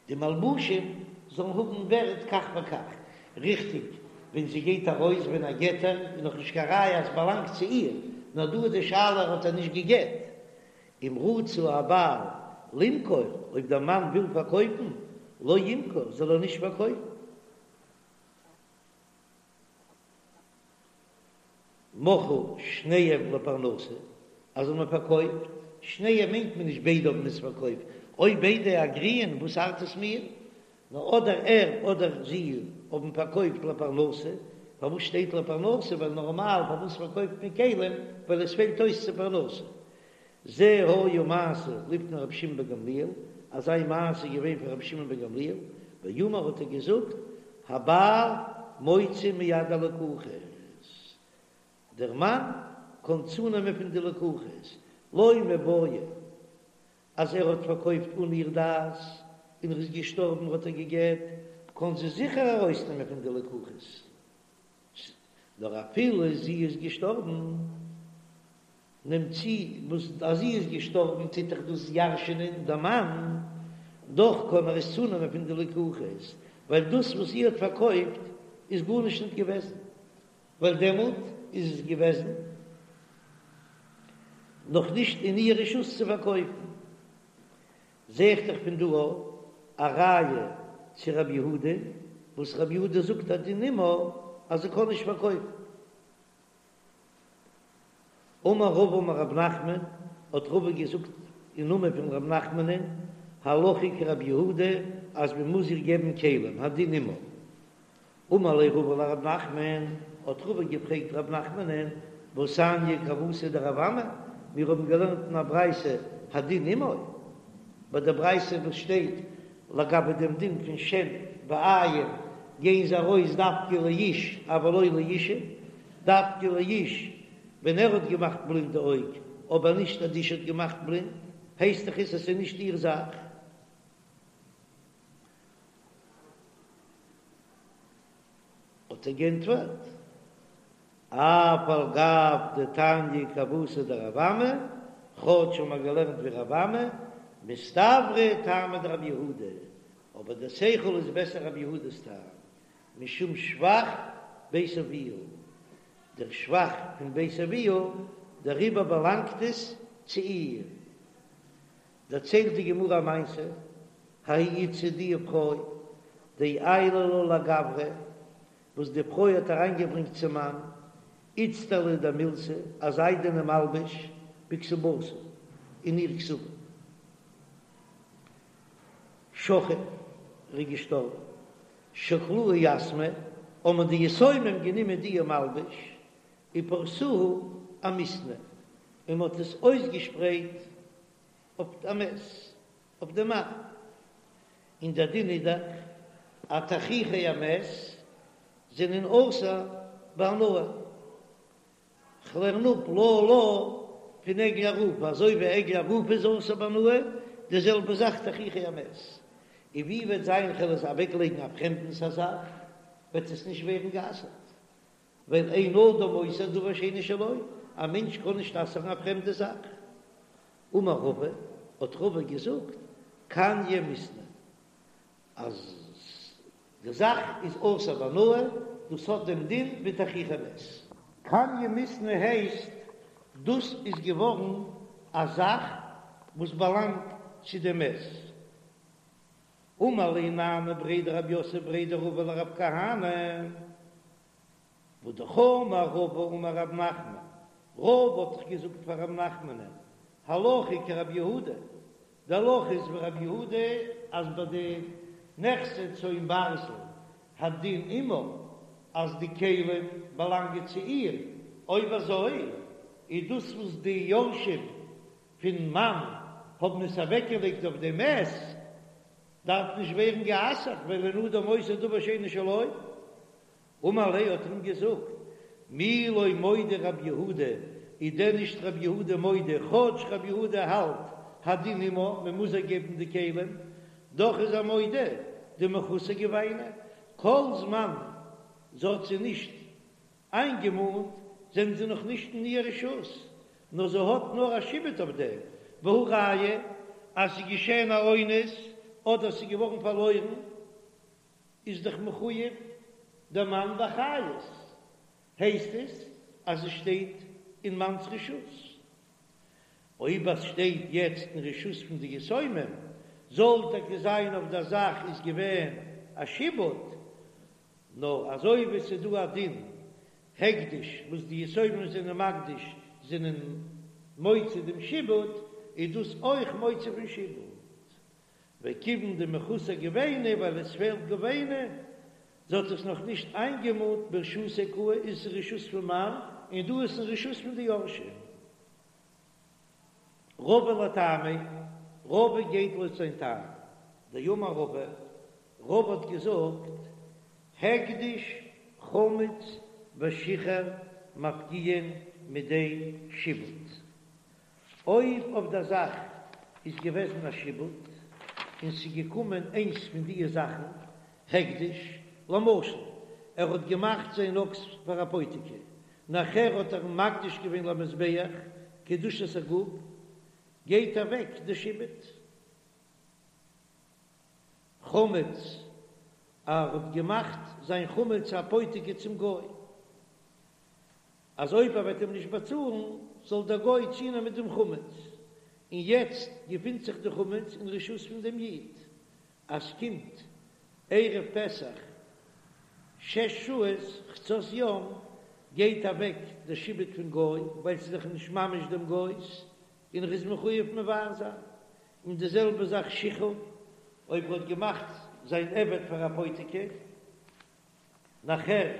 די מלבושים זאלן האבן ווערט כך וכך, ריכטיג ווען זי גייט ארויס ווען ער גט איר איז נאך נישט קיין ראיה אז ס'באלאנגט צו איר, נאר דא איז די שאלה האט ער נישט געגט, אם רצה הבעל למכור, אויב דער מאן וויל פארקויפן, לא ימכור, זאל ער נישט פארקויפן. מכרו שניהם לפרנסה, אז האבן פארקויפט, שניהם מיינט מען נישט ביידע האבן עס פארקויפט, אויב ביידע אגריען וואס ארט עס מיר, נאר אדער ער אדער זי האבן פארקויפט לפרנסה, פארוואס שטייט לפרנסה, ווייל נארמאל פארוואס פארקויפט מען כלים, ווייל עס פעלט אויס צו פרנסה. זה היה מעשה לפני רבי שמעון בן גמליאל, אזא מעשה איז געווען פאר רבי שמעון בן גמליאל, ואמר האט ער געזאגט, הבעל מוציא מיד הלקוחות, דער מאן קען צונעמען פון די לקוחות, לא מיבעיא אז ער האט פארקויפט אן איר דעת, און ער איז געשטארבן האט ער גע'גט, קען זי זיכער ארויסנעמען פון די לקוחות, נאר אפילו זי איז געשטארבן, נעמט צו וואס אז זי איז געשטארבן טוט דאך דאס ירש'ענען דער מאן, דאך קען ער עס צונעמען פון די לקוחות, ווייל דאס וואס זי האט פארקויפט איז גארנישט ניט געוועזן, ווייל דעמאלט איז עס געוועזן. נאך נישט אין איר רשות צו פארקויפן. זע איך דאך פון דא א ראיה צו רבי יהודה, וואס רבי יהודה זאגט הדין עמה אז זי קען נישט פארקויפן. אמר רבא אמר רב נחמן, האט רבא געזאגט אין נאמען פון רב נחמנ'ן, הלכה כרבי יהודה אז מען מוז איר געבן כלים, הדין עמה. אמר ליה רבא לרב נחמן, האט רבא געפרעגט רב נחמנ'ן, והתניא כוותיה דרב אמי, מיר האבן געלערנט אין א ברייתא הדין עמו, ביי די ברייתא וואס שטייט לגבי דעם דין פון שן ועין גייען זיי ארויס דווקא לאיש אבל לא לאישה, דווקא לאיש ווען ער האט געמאכט בלינד די אויג, אבער נישט אז די אשה האט געמאכט בלינד, הייסט דאך עס אז ס'איז נישט איר זאך. האט ער גענטפערט, אף על גב דתניא כוותיה דרב אמי, כאטש האבן מיר געלערנט ווי רב אמי, מסתברא טעמא דרבי יהודה, אבער דער שכל איז בעסער רבי יהודה'ס טעם, משום שבח בית אביה, דער שבח פון בית אביה, דעריבער באלאנגט עס צו איר. דערציילט די גמרא א מעשה, ההיא איתתא די פרוי דעיילא לה לגברא, וואס די פרוי האט אריינגעברענגט צום מאן, איצטלא דמילתא, א זיידענע מלבוש, בכתובתה, אין איר כתובה. שכיב, ער איז געשטארבן. שקלוה יתמי, האבן די יתומים גענומען די מלבוש, ופרסוה אמיתנא, און מען האט עס אויסגעשפרייט אויף א מת, אויף די מאן. און דער דין איז דאך אז תכריכי המת זענען אסור בהנאה. כ'לערן אפ לה לה פון עגלה ערופה, אזוי ווי עגלה ערופה איז אסור בהנאה, די זעלבע זאך תכריכי המת. און ווי וועט זיין כ'וועל עס אוועקלייגן א פרעמדנס א זאך, וועט עס נישט ווערן גע'אסר'ט, ווייל אין אדם אוסר דבר שאינו שלו, א מענטש קען נישט אסר'ן א פרעמדע זאך. אמר רבא, האט רבא געזאגט, קניא מיתנא, אז די זאך איז אסור בהנאה, דאס האט דעם דין ווי תכריכי מת. קניא מיתנא הייסט, דאס איז געווארן א זאך וואס באלאנגט צו דעם מת. אמר ליה נאנאי בריה דרב יוסף בריה דרבא לרב כהנא, והא דאמר רבא אמר רב נחמן, רבא האט דאך געזאגט פאר רב נחמנ'ן, הלכה כרבי יהודה, די הלכה איז ווי רבי יהודה אז ביי די נכסי צאן ברזל הדין עמה אז די כלים באלאנגען צו איר, אויב אזוי איז דאס וואס די יורשים פון מאן האבן עס אוועקגעלייגט אויף די מת דארף נישט ווערן גע'אסר'ט ווייל אין אדם אוסר דבר שאינו שלו. אמר ליה האט ער אים געזאגט, מי לא מודה רבי יהודה, איז דען נישט רבי יהודה מודה, כאטש רבי יהודה האלט הדין עמה, מען מוז איר געבן די כלים, דאך איז ער מודה דמחוסר גוביינא, כל זמן זי האט זיי נישט איינגעמאנט זענען זיי נאך נישט אין איר רשות, נאר זי האט נאר א שעבוד אויף דעם, והא ראיה אז ס'איז געשען א אונס אדער ס'איז געווארן פארלוירן. איז דאך מחויב דער מאן באחריות, הייסט עס אז עס שטייט אין מאנ'ס רשות. אויב עס שטייט יעצט אין רשות פון די יתומים, זאל טאקע זיין אויף דער זאך איז געווען א שעבוד, נאר אזוי ווי עס איז דא א דין הקדש וואס די יתומים זענען מקדיש זענען מוציא דעם שעבוד, איז דאס אויך מוציא פון שעבוד. וכיוון דמחוסר גוביינא ווייל עס פעלט גוביינא, זי האט עס נאך נישט איינגעמאנט ברשותיה קאי איז עס אין רשות פון מאן און דא איז אין רשות פון די יורשים. רבא לטעמיה, רבא גייט לויט זיין טעם, דאמר רבא, רבא האט געזאגט, הקדש חמץ ושיכר מפקיעין מידי שעבוד. אויב אויף דער זאך איז געוועזן א שעבוד און ס'איז געקומען איינס פון דיע זאכן, הקדש, למשל ער האט געמאכט זיין אקס פאר אפותיקי, נאכער האט ער אים מקדיש געווען למזבח קדושת הגוף, גייט אוועק די שעבוד. חמץ, ער האט געמאכט זיין חמץ אפותיקי צום גוי. אז אויב ער וועט אים נישט באצאלן. זאל דער גוי צונעמען דעם חמץ, און יעצט געפינט זיך די חמץ אין רשות פון דעם איד, אז ס'קומט ערב פסח שש שעות חצות יום גייט אוועק דער שעבוד פון גוי, ווייל ס'איז דאך נישט ממש דעם גוי'ס, און ער איז מחויב מבער זיין. און די זעלבע זאך שחרור, אויב ער האט געמאכט זיין עבד פאר אפותיקי, נאכער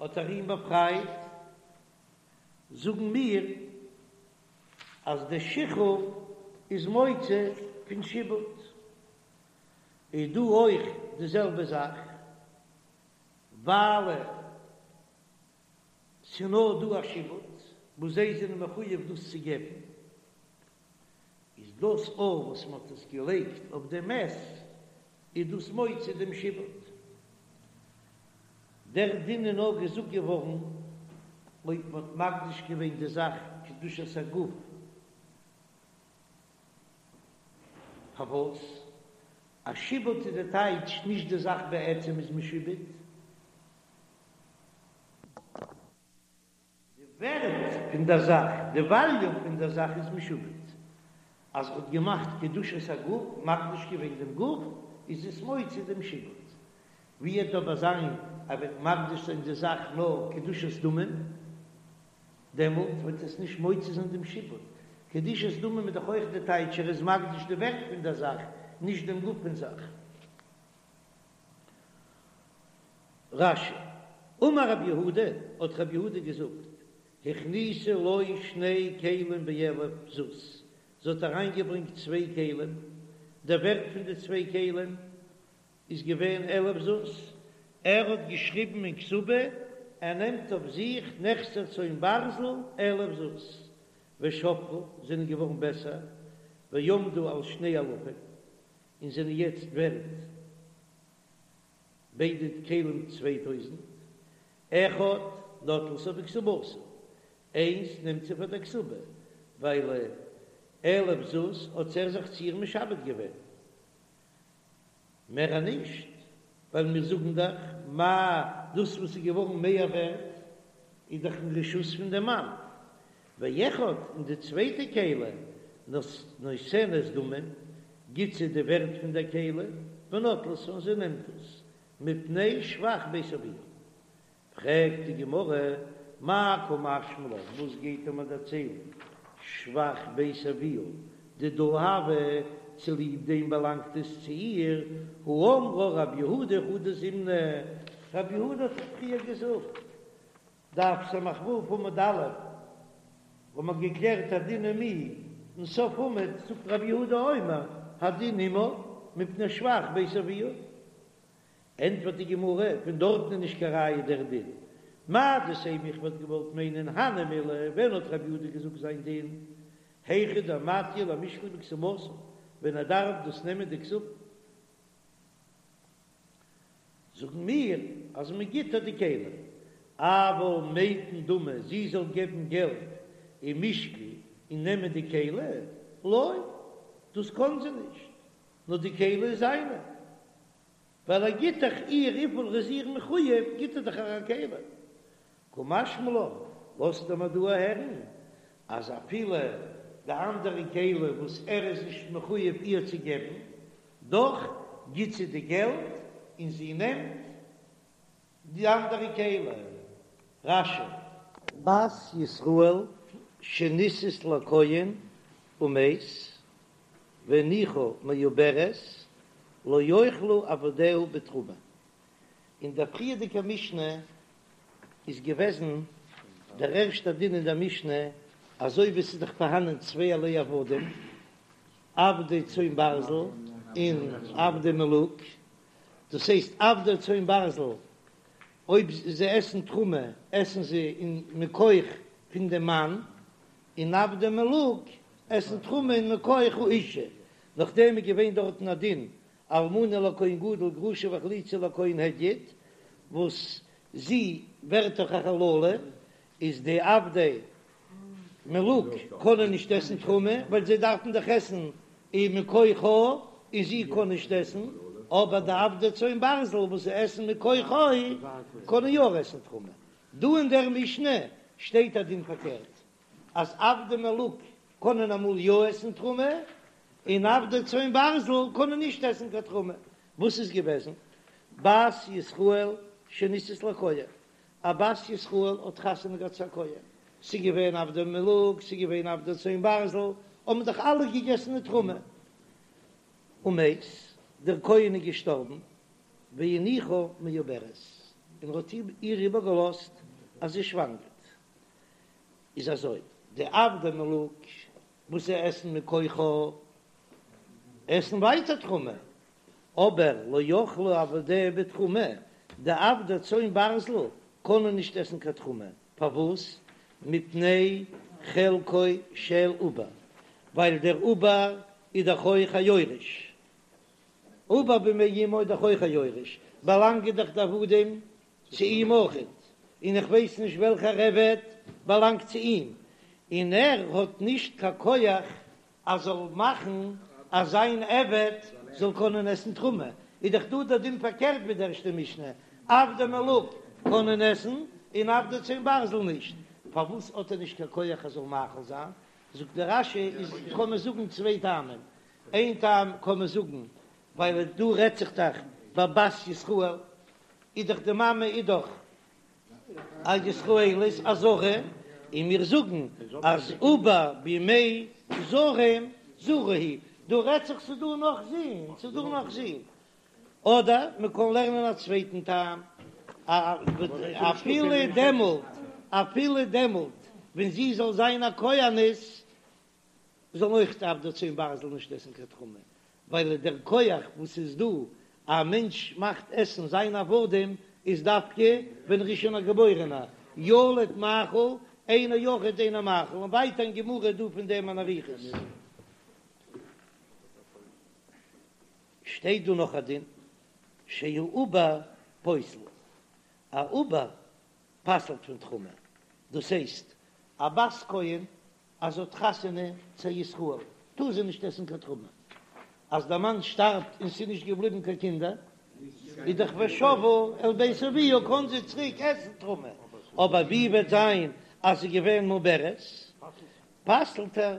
האט ער אים באפרייט, זאגן מיר אז דער שחרור איז מוציא פון שעבוד. איז דא אויך די זעלבע זאך, ווייל ס'נאר דא א שעבוד וואס זיי זענען מחויב דאס צו געבן, איז דאס אויך וואס מ'האט עס געלייגט אויף דעם מת, איז דאס מוציא דעם שעבוד. דער דין איז נאר געזאגט געווארן אויב מ'האט מקדיש געווען די זאך קדושת הגוף. פארוואס? א שעבוד איז די טייטש נישט די זאך בעצם איז משועבד. די ווערט פון דער זאך, די וואליו פון דער זאך איז משועבד. אז ער האט געמאכט קדושת הגוף, מקדיש געווען דעם גוף, איז עס מוציא דעם שעבוד. ווי וועט אבער זיין ער וועט מקדיש זיין די זאך נאר קדושת דמים, דעמאלט וועט עס נישט מוציא זיין דעם שעבוד. קדושת דמים איז דאך אויך די טייטש ער איז מקדיש די ווערט פון דער זאך, נישט דעם גוף פון זאך. רש"י, אמר רב יהודה, האט רב יהודה געזאגט, הכניסה לו שני כלים באלף זוז, זי האט אריינגעברענגט צוויי כלים, דער ווערט פון די צוויי כלים איז געווען אלף זוז, ער האט געשריבן אין כתובה, ער נעמט אויף זיך נכסי צאן ברזל אלף זוז, ושבחו, זענען געווארן בעסער, ועמדו על שני אלפים, און זענען יעצט ווערט ביידע כלים 2000, אחד נוטלתו בכתובתה, איינס נעמט זי פאר דער כתובה, ווייל אלף זוז האט ער זיך צו איר משעבד געווען. מער נישט, ווייל מיר זאגן דאך מה דאס וואס איז געווארן מער ווערט איז דאך אין רשות פון דעם מאן, ואחד און די צווייטע כלי נותנת דמים, גיט זי די ווערט פון דער כלי, ונוטלתו און זי נעמט עס, מפני שבח בית אביה. פרעגט די גמרא, מאי קא משמע לן, וואס גייט ער מיר דערציילן, שבח בית אביה דידה הוה, צוליב דעם באלאנגט עס צו איר, הא אמרה רב יהודה חדא זימנא, רב יהודה האט דאך פריער געזאגט, דף ס"ו עמוד א', וואו מ'האט געקלערט הדין עם מי, אין סוף עמוד זאגט רב יהודה אומר, הדין עמה מפני שבח בית אביה. ענטפערט די גמרא, פון דארטן איז נישט קיין ראיה דער דין. מהו דתימא איך וואלט געוואלט מיינען הני מילי, ווען האט רב יהודה געזאגט זיין דין? היכא דמטיא למישקל בכתובתה, ווען ער דארף דאס נעמען די כתובה. זאגן מיר אז מען גיט איר די כלי, אבל מיתן דמי זי זאל געבן געלט ומישקל און נעמען די כלי, לא, דאס קען זי נישט, נאר די כלי איז זיינע. ווייל ער גיט דאך איר וויפיל ער איז איר מחויב, גיט ער דאך איר א כלי. קא משמע לן, לאזט ער מיר דא הערן אז אפילו די אנדערע כלי וואס ער איז נישט מחויב איר צו געבן, דאך גיט זי די געלט און זי נעמט די אנדערע כלי. רש"י. בת ישראל שנישאת לכהן ומת והניחה מעוברת לא יאכלו עבדיה בתרומה. אין דער פריערדיגער משנה איז געוועזן דער ערשטער דין אין דער משנה, אזוי ווי עס איז דאך פארהאנען צווייערליי עבדים, עבדי צאן ברזל און עבדי מלוג, דאס הייסט עבדי צאן ברזל אויב זיי עסן תרומה עסן זיי אין מכח פון דעם מאן, און עבדי מלוג עסן תרומה אין מכח האישה, נאכדעם איז געווען דארטן א דין אלמנה לכהן גדול גרושה וחלוצה לכהן הדיוט, וואס זי ווערט דאך א חללה, איז די עבדי מלוג קענען נישט עסן תרומה ווייל זיי דארפן דאך עסן אין מכוחה און זי קען נישט עסן, אבער די עבדי צאן ברזל וואס זיי עסן מכוחו קענען יא עסן תרומה. דא אין דער משנה שטייט א דין פארקערט. אז עבדי מלוג קענען אמאל יא עסן תרומה, און עבדי צאן ברזל קענען נישט עסן קיין תרומה. וואס איז געוועזן? בת ישראל שנישאת לכהן, א בת ישראל האט חתונה געהאט צו א כהן, ס'איז געווען עבדי מלוג, ס'איז געווען עבדי צאן ברזל, האבן דאך אלע געגעסן די תרומה. ומת, דער כהן איז געשטארבן, והניחה מעוברת, און ער האט איר איבערגעלאזט אז זי שוואנגערט. איז אזוי, די עבדי מלוג וואס זיי עסן מכוחה, עסן ווייטער תרומה, אבער לא יאכלו עבדיה בתרומה, די עבדי צאן ברזל קענען נישט עסן קיין תרומה, פארוואס? מפני חלקו של עובר, ווייל דער עובר איז דאך אויך א יורש, עובר במעי אמו איז דאך אויך א יורש, באלאנגען דאך די עבדים צו אים אויכעט, און איך ווייס נישט וועלכער עבד באלאנגט צו אים, און ער האט נישט קיין כח אז זאל מאכן אז זיין עבד זאל קענען עסן תרומה, איז דאך דא דער דין פארקערט ווי די ערשטע משנה, עבדי מלוג קענען עסן און עבדי צאן ברזל נישט, פארוואס האט ער נישט קיין כח ער זאל מאכיל זיין? זאגט דער רש"י איז קען מען זאגן צוויי טעמים, איין טעם קען מען זאגן ווייל דא רעדט זיך דאך ביי בת ישראל, איז דאך די מאמע איז דאך א ישראלית א זרה, און מיר זאגן אז עובר במעי זרים זרה הוא, דא רעדט זיך ס'איז דא נאך זין, ס'איז דא נאך זין, אדער מען קען לערנען א צווייטן טעם, אפילו דעמאלט, אפילו דעמאלט ווען זי זאל זיין א כהנת, זאלן אויך די עבדי צאן ברזל נישט עסן קיין תרומה, ווייל דער כח וואס איז דא א מענטש מאכט עסן זיין עבדים איז דווקא ווען ער איז שוין א געבוירענער, ילוד מאכיל אינו יחיד אינו מאכיל, און ווייטער אין גמרא איז דא פון דעם אן אריכות. שטייט דא נאך א דין, שהעובר פוסל, א עובר פסל'ט פון תרומה, דאס הייסט א בת כהן אז זי האט חתונה צו א ישראל טאר זי נישט עסן קיין תרומה, אז דער מאן שטארבט און ס'איז נישט געבליבן קיין קינדער איז דאך ושבה אל בית אביה קען זי צוריק עסן תרומה, אבער ווי וועט זיין אז זי איז געווען מעוברת פסל'ט ער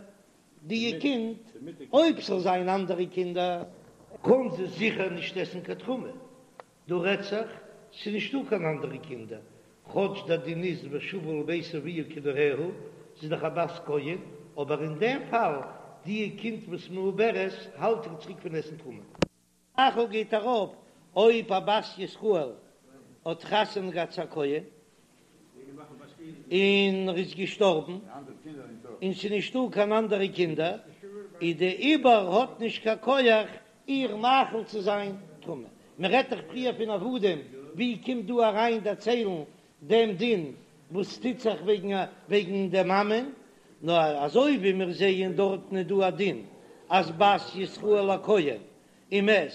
די קינד, אויב ס'זאל זיין אנדערע קינדער קען זי זיכער נישט עסן קיין תרומה, דא רעדט זיך, ס'איז נישטא קיין אנדערע קינדער, כאטש דער דין איז ושבה אל בית אביה כנעוריה, זי איז דאך א בת כהן, אבער אין דעם פאל, די קינד וואס מעוברת האלט איר צוריק פון עסן תרומה. מאכיל גייט ארויף אויב א בת ישראל האט חתונה געהאט צו א כהן און ער איז געשטארבן און ס'איז נישטא קיין אנדערע קינדער, איז די עובר האט נישט קיין כח איר מאכיל צו זיין תרומה. מען רעדט דאך פריער פון עבדים, ווי קומט דא אריין דערציילן דעם דין וואס טוט זיך וועגן וועגן דער מאמען? נאר אזוי ווי מיר זעען דארטן איז דא א דין אז בת ישראל לכהן ומת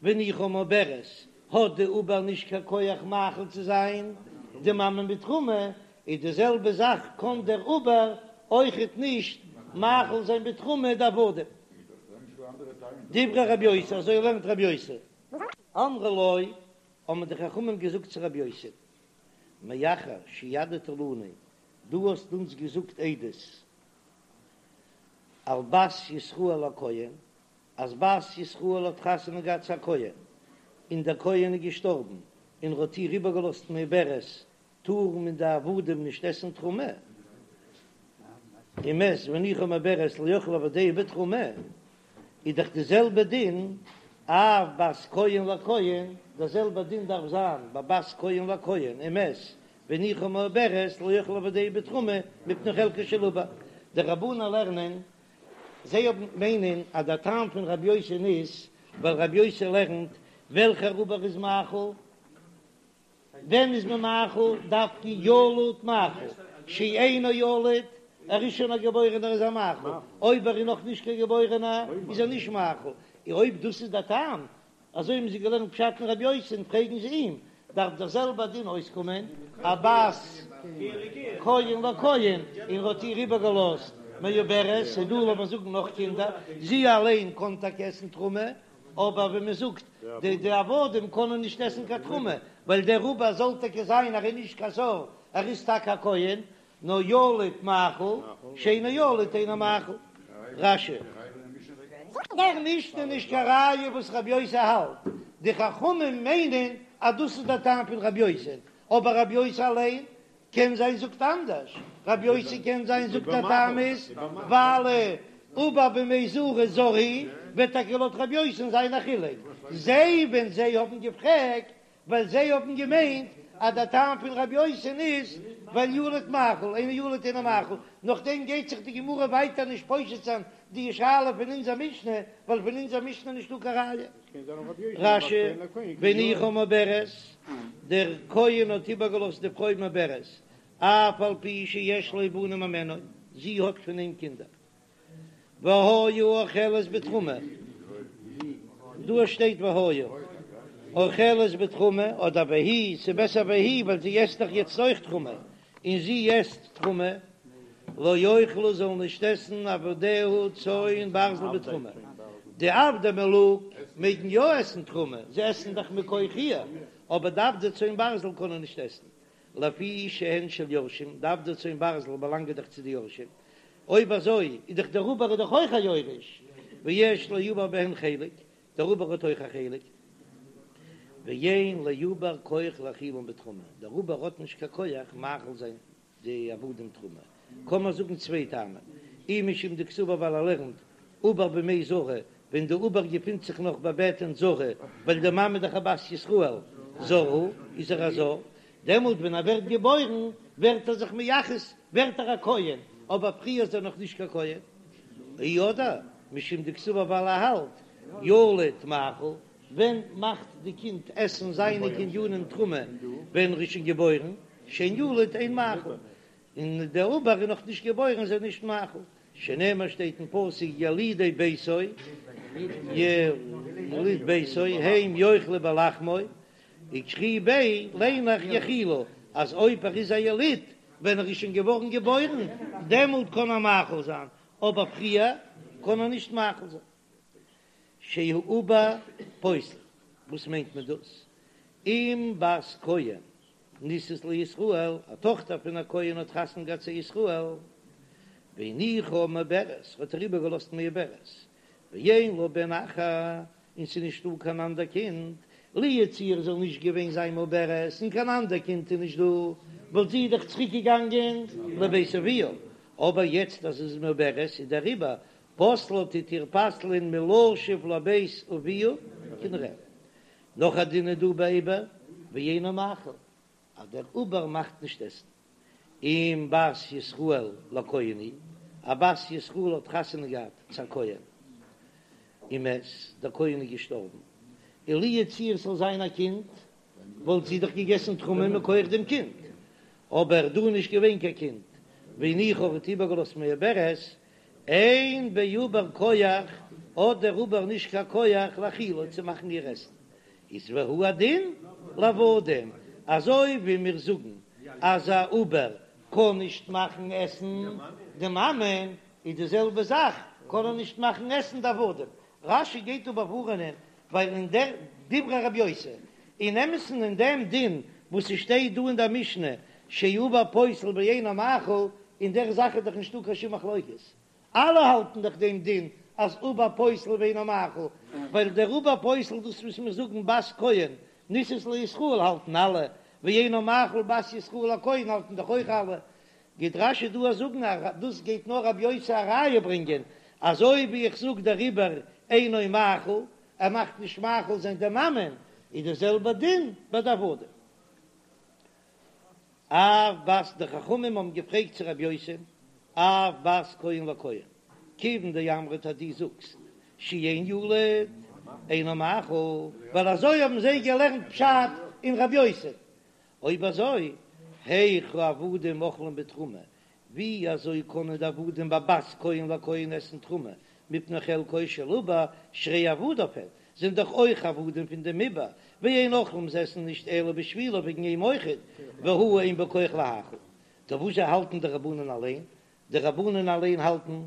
והניחה מעוברת האט די עובר נישט קיין כח מאכיל צו זיין די מאמע מיט תרומה, איז די זעלבע זאך קען דער עובר אויכעט נישט מאכיל זיין בתרומה די עבדים. דברי רבי יוסי, אזוי לערנט רבי יוסי. אמרו לו, האבן די חכמים געזאגט צו רבי יוסי, מאחר שהעדת לנו, דו האסט אונז געזאגט עדות על בת ישראל לכהן, אז בת ישראל האט חתונה געהאט צו א כהן, און דער כהן איז געשטארבן, און ער האט איר איבערגעלאזט מעוברת, טארן מען די עבדים נישט עסן תרומה, ומת והניחה מעוברת לא יאכלו עבדיה בתרומה, איז דאך די זעלבע דין אף בת כהן לכהן, דער זעלבע דין דארף זיין ביי בת כהן לכהן, ומת והניחה מעוברת לא יאכלו עבדיה בתרומה מפני חלקו של עובר, די רבנן לערנען זיי האבן מיינען אז דער טעם פון רבי יוסי'ן איז ווייל רבי יוסי לערנט וועלכער עובר איז מאכיל, ווען איז מען מאכיל דווקא ילוד מאכיל, שאינו ילוד, ער איז שוין א געבוירענער איז ער מאכיל, אויב ער איז נאך נישט קיין געבוירענער איז ער נישט מאכיל, אויב דאס איז דער טעם אזוי האבן זיי געלערנט פשט אין רבי יוסי'ן, פרעגן זיי אים, דארף דער זעלבער דין אויסקומען, א בת כהן לכהן, און ער האט איר איבערגעלאזט מעוברת, ס'איז דא לאמיר זאגן נאך קינדער, זי אליין קען טאקע עסן תרומה, אבער ווי מען זאגט, די די עבדים קענען נישט עסן קיין תרומה, ווייל דער עובר זאל טאקע זיין ער איז נישט קיין זר, ער איז טאקע א כהן. נאר ילוד מאכיל, שאינו ילוד אינו מאכיל. רש"י. דער משנה איז נישט קיין ראיה וואס רבי יוסי האלט, די חכמים מיינען אז דאס איז דער טעם פון רבי יוסי, אבער רבי יוסי אליין קען זיין זאגט אנדערש, רבי יוסי קען זיין זאגט דער טעם איז ווייל עובר במעי זרה זר הוא, וועט טאקע לויט רבי יוסי'ן זיין א חילוק, זיי ווען זיי האבן געפרעגט ווייל זיי האבן געמיינט אז דער טעם פון רבי יוסי'ן איז ווייל ילוד מאכיל, אינו ילוד אינו מאכיל, נאכדעם גייט זיך די גמרא ווייטער נישט פושט זיין די שאלה פון אונזער משנה, ווייל פון אונזער משנה איז נישטא קיין ראיה. רש"י, והניחה מעוברת, דער כהן האט איבערגעלאזט די פרוי מעוברת, אף על פי שיש לו בנים הימנה, זי האט פון אים קינדער. והיה אוכלת בתרומה, דא שטייט והיה אוכלת בתרומה אדער והיא, ס'בעסער והיא ווייל זי עסט דאך יעצט אויך תרומה, און זי עסט תרומה, לא יאכלו זאלן נישט עסן עבדיה צאן ברזל בתרומה, די עבדי מלוג מעגן יא עסן תרומה, זיי עסן דאך מכח איר, אבער די עבדי צאן ברזל קענען נישט עסן, לפי שהן של יורשים, די עבדי צאן ברזל באלאנגען דאך צו די יורשים, אויב אזוי איז דאך דער עובר איז דאך אויך א יורש, ויש לעובר בהן חלק, דער עובר האט אויך א חלק, ואין לעובר כח להאכילן בתרומה, דער עובר האט נישט קיין כח מאכיל זיין די עבדים תרומה, קען מען זאגן צוויי טעמים, אי משום דקסבר ווייל ער לערנט עובר במעי זרה, ווען די עובר געפינט זיך נאך בבטן זרה, ווייל די מאמע איז דאך א בת ישראל, זר הוא, איז ער א זר, דעמאלט ווען ער ווערט געבוירן ווערט ער זיך מייחס, ווערט ער א כהן, אבער פריער איז ער נאך נישט קיין כהן. אי אדער משום דקסבר ווייל ער האלט ילוד מאכיל, ווען מאכט די קינד עסן זיינע קנינים תרומה ווען ער איז שוין געבוירן, שאין ילוד אין מאכיל, און דער עובר איז נאך נישט געבוירן איז ער נישט מאכיל, שנאמר שטייט אין פסוק ילידי ביתו, יליד ביתו הם יאכלו בלחמו, וקרי ביה ליין איך יאכילו, אז אויב ער איז א יליד ווען ער איז שוין געווארן געבוירן דעמאלט קען ער מאכיל זיין, אבער פריער קען ער נישט מאכיל זיין. שהעובר פוסל, וואס מיינט מען דאס? אם בת כהן נישאת לישראל, א טאכטער פון א כהן האט חתונה געהאט צו ישראל, והניחה מעוברת, האט ער איבערגעלאזט מעוברת, ואין לה בן אחר, און ס'איז נישטא קיין אנדער קינד, לו יצוייר זאל נישט געווען זיין מעוברת און קיין אנדער קינד איז נישט דא, וואלט זי דאך צוריק געגאנגען לבית אביה, אבער יעצט אז זי איז מעוברת איז דעריבער פוסלה טוט איר פסל'ען מלשוב לבית אביה כנעוריה. נאך א דין איז דא ביי עובר ואינו מאכיל, אז דער עובר מאכט נישט עסן. אם בת ישראל לכהן היא, א בת ישראל האט חתונה געהאט צו א כהן, ומת, דער כהן איז געשטארבן, און לו יצוייר ס'זאל זיין א קינד, וואלט זי דאך געגעסן תרומה מכח דעם קינד, אבער דא איז נישט געווען קיין קינד, והניחה האט איבערגעלאזט מעוברת, אין בעובר כח, האט דער עובר נישט קיין כח להאכילה צו מאכן איר עסן, איז והוא הדין לעבדים, אזוי ווי מיר זאגן אז א עובר קען נישט מאכן עסן די מאמע, איז די זעלבע זאך קען ער נישט מאכן עסן די עבדים. רש"י גייט דא באווארענען ווייל אין דער דברי רבי יוסי, אין אמת'ן אין דעם דין וואס ס'שטייט דא אין דער משנה שהעובר פוסל ואינו מאכיל, אין דער זאך איז דאך נישטא קיין שום מחלוקת, אלע האלטן דאך דעם דין אז עובר פוסל ואינו מאכיל, ווייל דער עובר פוסל דאס וואס מיר זאגן בת כהן נישאת לישראל האלטן אלע, ואינו מאכיל בת ישראל לכהן האלטן דאך אויך אלע, גייט רש"י דא זאגן אז דאס גייט נאר רבי יוסי א ראיה ברענגען, אזוי ווי איך זאג דער עובר אינו מאכיל, ער מאכט נישט מאכיל זיין די מאמען, איז די זעלבע דין ביי די עבדים. אף בת די חכמים האבן געפרעגט צו רבי יוסי, אף בת כהן לכהן, כיוון דאמרת אז דו זאגסט שאין ילוד אינו מאכיל, ווייל אזוי האבן זיי געלערנט פשט אין רבי יוסי, אויב אזוי היאך העבדים אוכלים בתרומה, ווי אזוי קענען די עבדים ביי בת כהן לכהן עסן תרומה מפני חלקו של עובר שהרי עבדיו הן, זענען דאך אויך עבדים פון דעם עובר, ואין אוכלים זיי עסן נישט אלא בשבילו וועגן אים אויכעט, והוא אין בו כח להאכיל. טא וואזשע האלטן די רבנן אליין? די רבנן אליין האלטן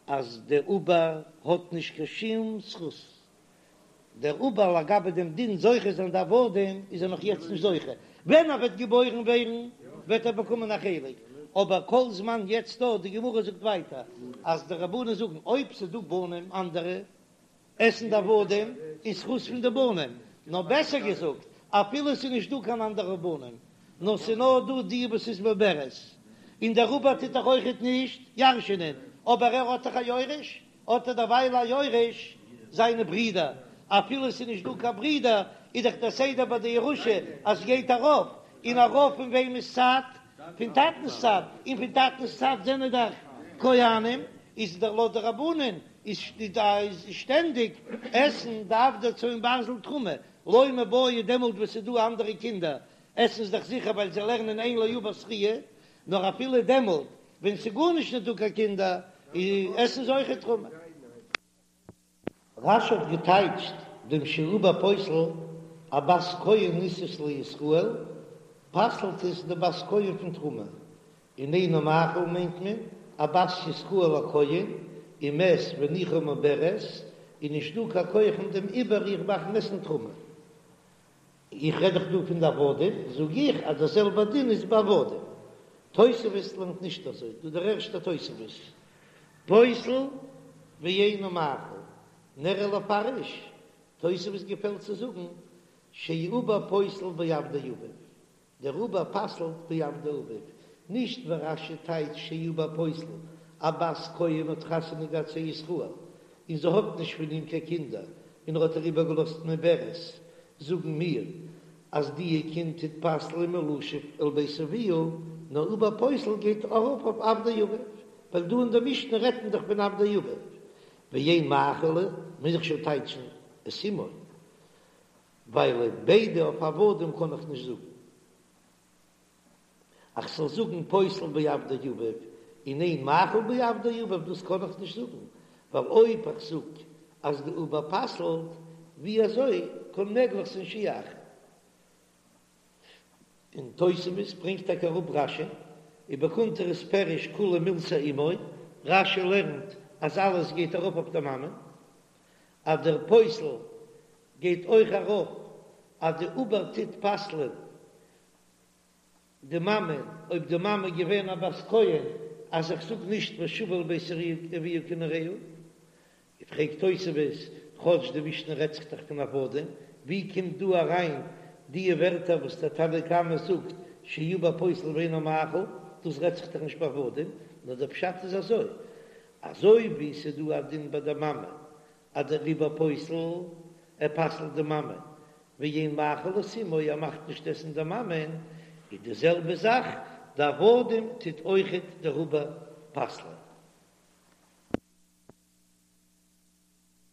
אז דער עובר האט נישט קיין שום זכות דער עובר לגבי דעם דין זוכה זיין די עבדים איז ער נאך יעצט נישט זוכה, ווען ער וועט געבוירן ווערן וועט ער באקומען א חלק, אבער כל זמן יעצט דא, די גמרא זאגט ווייטער אז די רבנן זאגן אויב ס'איז דא בנים אנדערע עסן די עבדים אין זכות פון די בנים, נאר בעסער געזאגט אפילו ס'איז נישט דא קיין אנדערע בנים נאר ס'איז נאר דא די וואס איז מעוברת, און דער עובר טוט דאך אויכעט נישט ירש'ענען, אבער ער האט דאך א יורש, האט ער דערווייל א יורש זיינע ברידער, אפילו ס'איז נישט דא קיין ברידער, איז דאך דער סדר ביי די ירושה אז ס'גייט ארויף, און ארויף פון וועמענס צד? פון טאטנ'ס צד, און פון טאטנ'ס צד זענען דאך כהנים, איז דער לויט די רבנן איז שטענדיג עסן די עבדי צאן ברזל תרומה, לא מיבעיא דעמאלט וואס ס'איז דא אנדערע קינדער עסן זיי דאך זיכער ווייל זיי לערנען אין לעובר זכיה, נאר אפילו דעמאלט ווען ס'איז גארנישט נישט דא קיין קינדער עסן זיי אויכעט תרומה. רש"י האט געטייטשט דעם שהעובר פוסל א בת כהן נישאת לישראל, פסל'ט עס די בת כהן פון תרומה, און אינו מאכיל מיינט מען א בת ישראל לכהן, ומת והניחה מעוברת, איז נישט דא קיין כח אין דעם עובר איר מאכן עסן תרומה. איך רעד דאך דא פון די עבדים, זאג איך אז דער זעלבער דין איז ביי עבדים. תוספות לערנט נישט אזוי, דא דער ערשטער תוספות, פוסל ואינו מאכיל, נראה לפרש, תוספות געפעלט צו זאגן שהעובר פוסל בעבדי אביו, דער עובר פסל'ט בעבדי אביו, נישט ווי רש"י טייטשט שהעובר פוסל, א בת כהן האט חתונה געהאט צו ישראל און זי האט נישט פון אים קיין קינדער און ער האט איר איבערגעלאזט מעוברת, זאגן מיר אז דיע קינד טוט פסל'ען מלשוב אל בית אביה, נאר עובר פוסל גייט ארויף אויף עבדי אביו, ווייל דא אין די משנה רעדט מען דאך פון עבדי אביו, ואין מאכיל, מוז איך שוין טייטשן את אמו. ווייל ביידע אויף עבדים קען איך נישט זאגן. איך זאל זאגן פוסל בעבדי אביו און אין מאכיל בעבדי אביו דאס קען איך נישט זאגן, ווייל אויב איך זאג אז די עובר פסל'ט, ווי אזוי קען מעגליך זיין שיאכיל? און תוספות ברענגט טאקע אראפ רש"י, ובקונטרס פירש כולה מילתא אמו, רש"י לערנט אז אלעס גייט ארויף אויף די מאמע, אז דער פוסל גייט אויך ארויף אז די עובר טוט פסל'ען די מאמע, אויב די מאמע איז געווען א בת כהן, אז איך זאג נישט ושבה אל בית אביה כנעוריה. פרעגט תוספות, כאטש די משנה רעדט זיך דאך פון עבדים, ווי קומט דא אריין די ווערטער וואס דער תנא קמא זאגט שהעובר פוסל ואינו מאכיל, דאס רעדט זיך דאך נישט ביי עבדים, נאר דער פשט איז אזוי, אזוי ווי ס'איז דא א דין ביי די מאמע אז דער עובר פוסל, ער פסל'ט די מאמע, ואין מאכיל את אמו, ער מאכט נישט עסן די מאמען, איז די זעלבע זאך די עבדים טוט אויכעט דער עובר פסל'ען.